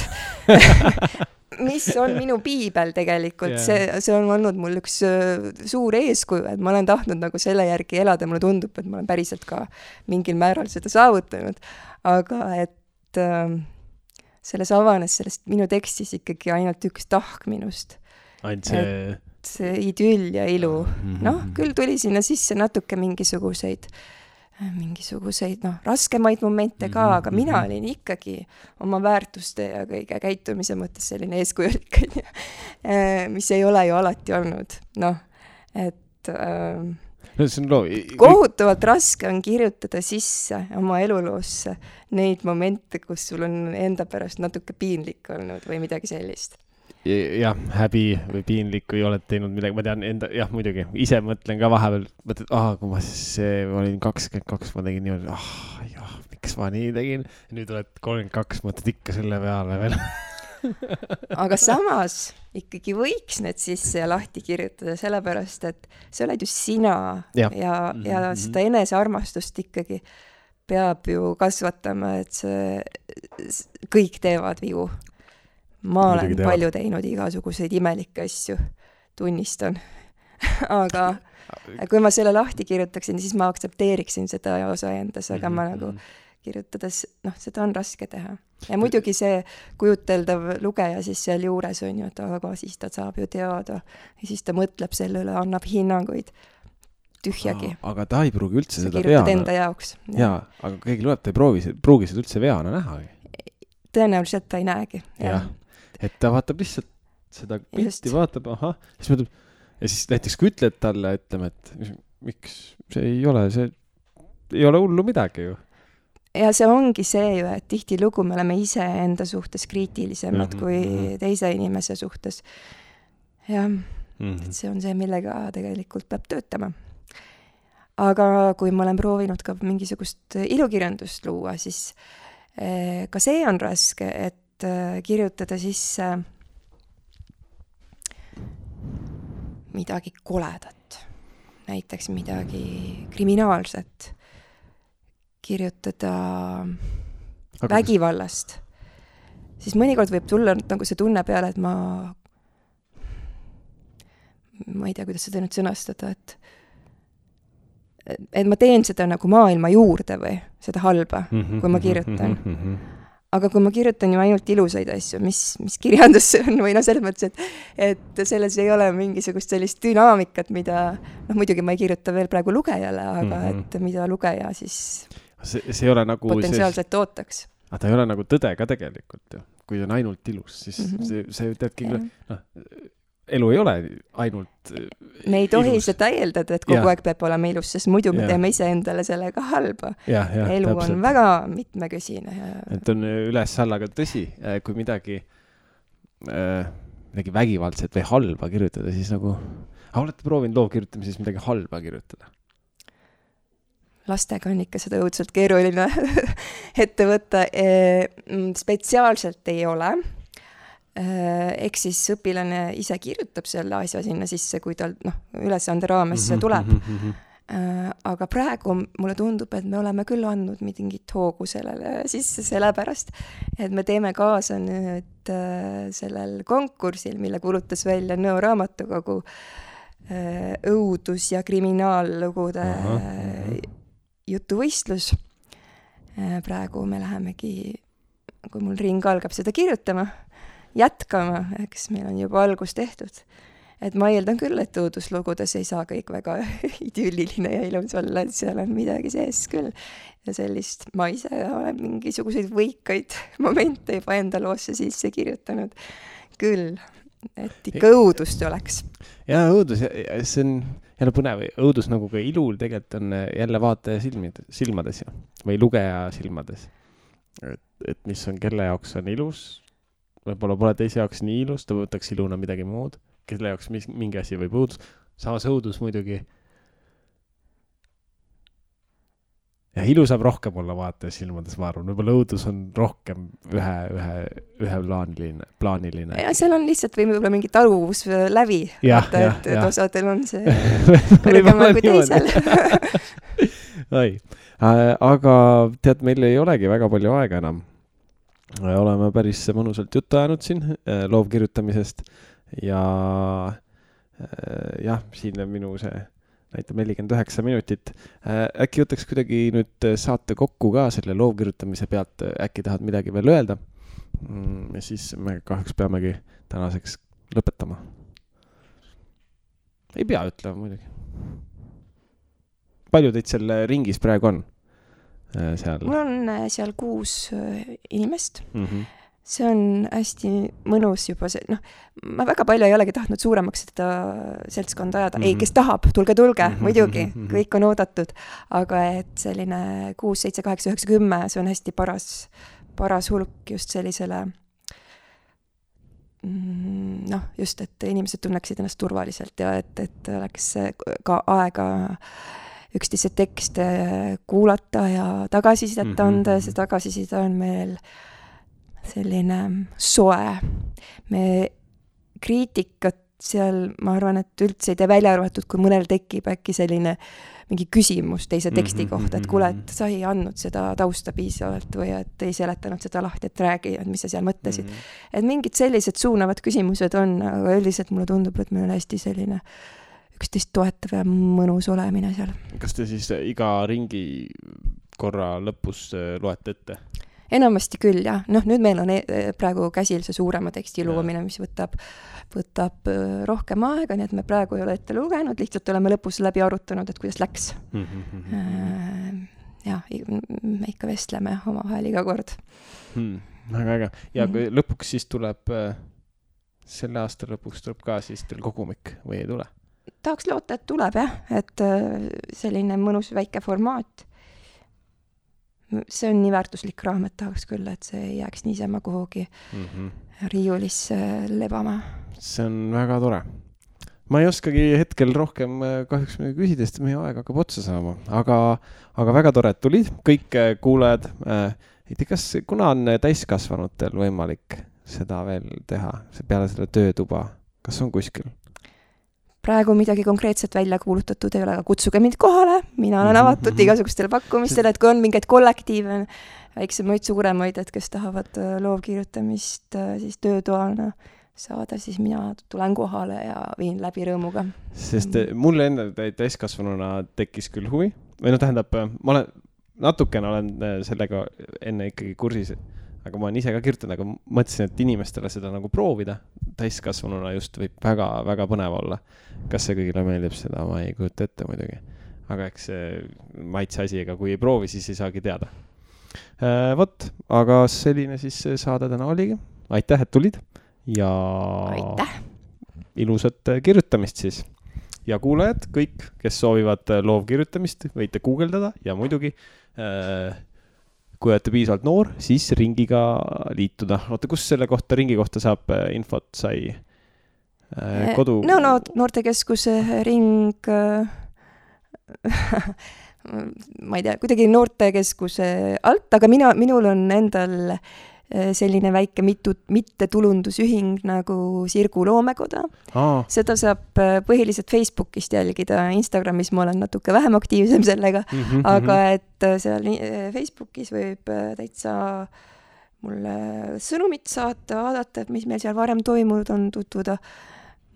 S2: mis on minu piibel tegelikult. See on olnud mul üks suur eeskuju, et ma olen tahtnud nagu selle järgi elada, mulle tundub, et ma olen päriselt ka mingil määral seda saavutanud. Aga et selles avanes sellest minu tekstis ikkagi ainult üks tahk minust.
S1: Ainult
S2: see idüll ja ilu. Küll tuli sinna sisse natuke mingisuguseid raskemaid momente ka, aga mina olin ikkagi oma väärtuste ja kõige käitumise mõttes selline eeskujulik, mis ei ole ju alati olnud. Kohutavalt raske on kirjutada sisse oma eluloosse neid momente, kus sul on enda pärast natuke piinlik olnud või midagi sellist.
S1: Jah, häbi või piinlik või oled teinud midagi, ma tean muidugi, ise mõtlen ka vahepeal, kui ma olin 22, ma tegin niimoodi, miks ma nii tegin, nüüd oled 32, mõtled ikka selle peale veel.
S2: Aga samas ikkagi võiks need sisse ja lahti kirjutada, sellepärast, et see oled ju sina ja seda enesearmastust ikkagi peab ju kasvatama, et kõik teevad vigu. Ma olen palju teinud igasuguseid imelikke asju, tunnistan. Aga kui ma selle lahti kirjutaksin, siis ma aktsepteeriksin seda osa endas, aga ma nagu kirjutades, seda on raske teha. Ja muidugi see kujuteldav lugeja siis seal juures on ju, et aga siis ta saab ju teada ja siis ta mõtleb selle üle, annab hinnanguid tühjagi.
S1: Aga ta ei pruugi üldse seda
S2: kirjutad enda jaoks.
S1: Jaa, aga keegi loeb, ta ei pruugi seda üldse veana näha.
S2: Tõenäoliselt ta ei näegi.
S1: Jah, et ta vaatab lihtsalt seda pilti, vaatab, siis mõtleb, ja siis näiteks kui ütled talle, ütleme, et miks see ei ole hullu midagi ju.
S2: Ja see ongi see ju, et tihti lugu me oleme ise enda suhtes kriitilisemad kui teise inimese suhtes. Ja et see on see, millega tegelikult peab töötama. Aga kui ma olen proovinud ka mingisugust ilukirjandust luua, siis ka see on raske, et kirjutada sisse midagi koledat, näiteks midagi kriminaalset, kirjutada vägivallast, siis mõnikord võib tulla nagu see tunne peale, et ma ei tea, kuidas seda nüüd sõnastada, et ma teen seda nagu maailma juurde või seda halba, kui ma kirjutan. Aga kui ma kirjutan ju ainult ilusaid asju, mis kirjandus on, või selles mõttes, et selles ei ole mingisugust sellist dünaamikat, mida, muidugi ma ei kirjuta veel praegu lugejale, aga et mida lugeja siis
S1: see ei ole nagu
S2: potentsiaalselt ootaks.
S1: Aga ta ei ole nagu tõde ka tegelikult ju. Kui on ainult ilus, siis see teadki elu ei ole ainult
S2: me ei tohi seda eeldada, et kogu aeg peab olema ilus, sest muidu me teeme ise endale sellega halba. Elu täpselt. On väga mitmekesine.
S1: Et on üles-alla, aga tõsi, kui midagi vägivaldset või halba kirjutada, siis nagu olete proovinud loovkirjutamises midagi halba kirjutada?
S2: Lastega on ikka seda õudselt keeruline ette võtta. Spetsiaalselt ei ole. Eks siis õpilane ise kirjutab selle asja sinna sisse, kui tal ülesande raames tuleb. Aga praegu mulle tundub, et me oleme küll andnud mingit hoogu sellele sisse sellepärast, et me teeme kaasa nüüd sellel konkursil, mille kuulutas välja Nõo raamatukogu õudus- ja kriminaallugude jutuvõistlus. Praegu me lähemegi, kui mul ring algab seda kirjutama, jätkama, eks meil on juba algus tehtud. et ma eeldan küll, et õuduslugudes ei saa kõik väga idülliline ja ilus olla, et seal on midagi sees küll. Ja sellist, ma ise olen mingisuguseid võikaid momente juba enda loosse sisse kirjutanud küll, et ikka õudust oleks.
S1: Ja õudus, see on jälle põnev, õudus nagu ka ilul tegelikult on jälle vaataja silmades ja, või lugeja silmades. Et mis on, kelle jaoks on ilus, võib-olla pole teise jaoks nii ilus, ta võtaks iluna midagi muud, kelle jaoks mingi asi võib õudus. Samas õudus muidugi. Ja ilu saab rohkem olla vaataja silmades, ma arvan. Võib-olla õudus on rohkem ühe plaaniline.
S2: Ja seal on lihtsalt võib-olla mingi taluvus läbi. Vaata, et osadel on see kõrgemal kui teisel.
S1: Aga tead, meil ei olegi väga palju aega enam. Oleme päris mõnusalt juttu ajanud siin loovkirjutamisest ja siin on minu see näitab 49 minutit. Äkki võtaks kuidagi nüüd saate kokku ka selle loovkirjutamise pealt, äkki tahad midagi veel öelda? Ja siis me kahjuks peamegi tänaseks lõpetama. Ei pea ütlema muidugi. Palju teid seal ringis praegu on?
S2: Mul on seal 6 inimest. See on hästi mõnus juba see, ma väga palju ei olegi tahtnud suuremaks seda seltskonda ajada. Ei, kes tahab, tulge, muidugi, kõik on oodatud. Aga et selline 6, 7, 8, 9, 10, see on hästi paras hulk just sellisele, just, et inimesed tunneksid ennast turvaliselt ja et oleks ka aega üksteise tekste kuulata ja tagasisidet anda ja see tagasiside on meil selline soe. Me kriitikat seal, ma arvan, et üldse ei tee välja arvatud, kui mõnel tekib äkki selline mingi küsimus teise teksti kohta, et kuule, et sa ei andnud seda tausta piisavalt või et ei seletanud seda lahti, et räägi, et mis sa seal mõtlesid. Et mingid sellised suunavad küsimused on, aga üldiselt mulle tundub, et meil on hästi selline üksteist toetav ja mõnus olemine seal.
S1: Kas te siis iga ringi korra lõpus loete ette?
S2: Enamasti küll, jah. Nüüd meil on praegu käsil see suurema teksti loomine, mis võtab rohkem aega, nii et me praegu ei ole ette lugenud, lihtsalt oleme lõpus läbi arutanud, et kuidas läks. Me ikka vestleme omavahel iga kord.
S1: Väga äge. Ja lõpuks siis tuleb, selle aasta lõpuks tuleb ka siis teil kogumik või ei tule?
S2: Tahaks loota, et tuleb, jah. Et selline mõnus väike formaat. See on nii väärtuslik raamat, tahaks küll, et see ei jääks niisama kuhugi riiulisse lebama.
S1: See on väga tore. Ma ei oskagi hetkel rohkem kahjuks küsida, sest meie aeg hakkab otsa saama. Aga väga tore, et tulid. Kõik kuulajad. Kas kuna on täiskasvanutel võimalik seda veel teha? Peale selle töötuba. Kas on kuskil?
S2: Praegu midagi konkreetset välja kuulutatud ei ole, aga kutsuge mind kohale. Mina olen avatud igasugustele pakkumistele, et kui on mingeid kollektiive, väiksemaid, suuremaid, et kes tahavad loovkirjutamist siis töötoana saada, siis mina tulen kohale ja viin läbi rõõmuga.
S1: Sest mulle enda täiskasvanuna tekkis küll huvi. Või tähendab, ma natukene olen sellega enne ikkagi kursis, aga ma olen ise ka kirjutanud, aga mõtlesin, et inimestele seda nagu proovida. Täiskasvanuna just võib väga, väga põnev olla. Kas see kõigile meeldib seda, ma ei kujuta ette muidugi. Aga eks see maitse asi, ega kui ei proovi, siis ei saagi teada. Aga selline siis saade täna oligi. Aitäh, et tulid. Ja
S2: aitäh.
S1: Ilusat kirjutamist siis. Ja kuulajad, kõik, kes soovivad loovkirjutamist, võite guugeldada ja muidugi kui olete piisavalt noor, siis ringiga liituda. Oota, kus selle kohta, ringi kohta saab infot sai kodu?
S2: Noortekeskuse ring, ma ei tea, kuidagi noortekeskuse alt, aga minul on endal selline väike mittetulundusühing nagu Sirgu Loomekoda. Seda saab põhiliselt Facebookist jälgida, Instagramis ma olen natuke vähem aktiivsem sellega, aga et seal Facebookis võib täitsa mulle sõnumit saata, vaadata, et mis meil seal varem toimunud on, tutvuda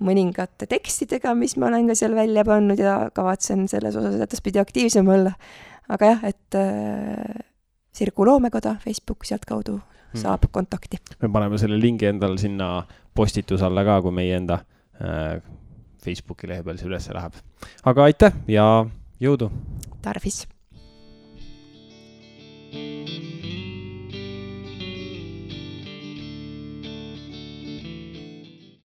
S2: mõningate tekstidega, mis ma olen ka seal välja pannud ja kavatsen selles osas edaspidi aktiivsem olla. Aga jah, et Sirgu Loomekoda, Facebook sealt kaudu saab kontakti.
S1: Me paneme selle lingi endal sinna postitus alla ka, kui meie enda Facebooki lehe peal see üles läheb. Aga aitäh ja jõudu!
S2: Tarvis!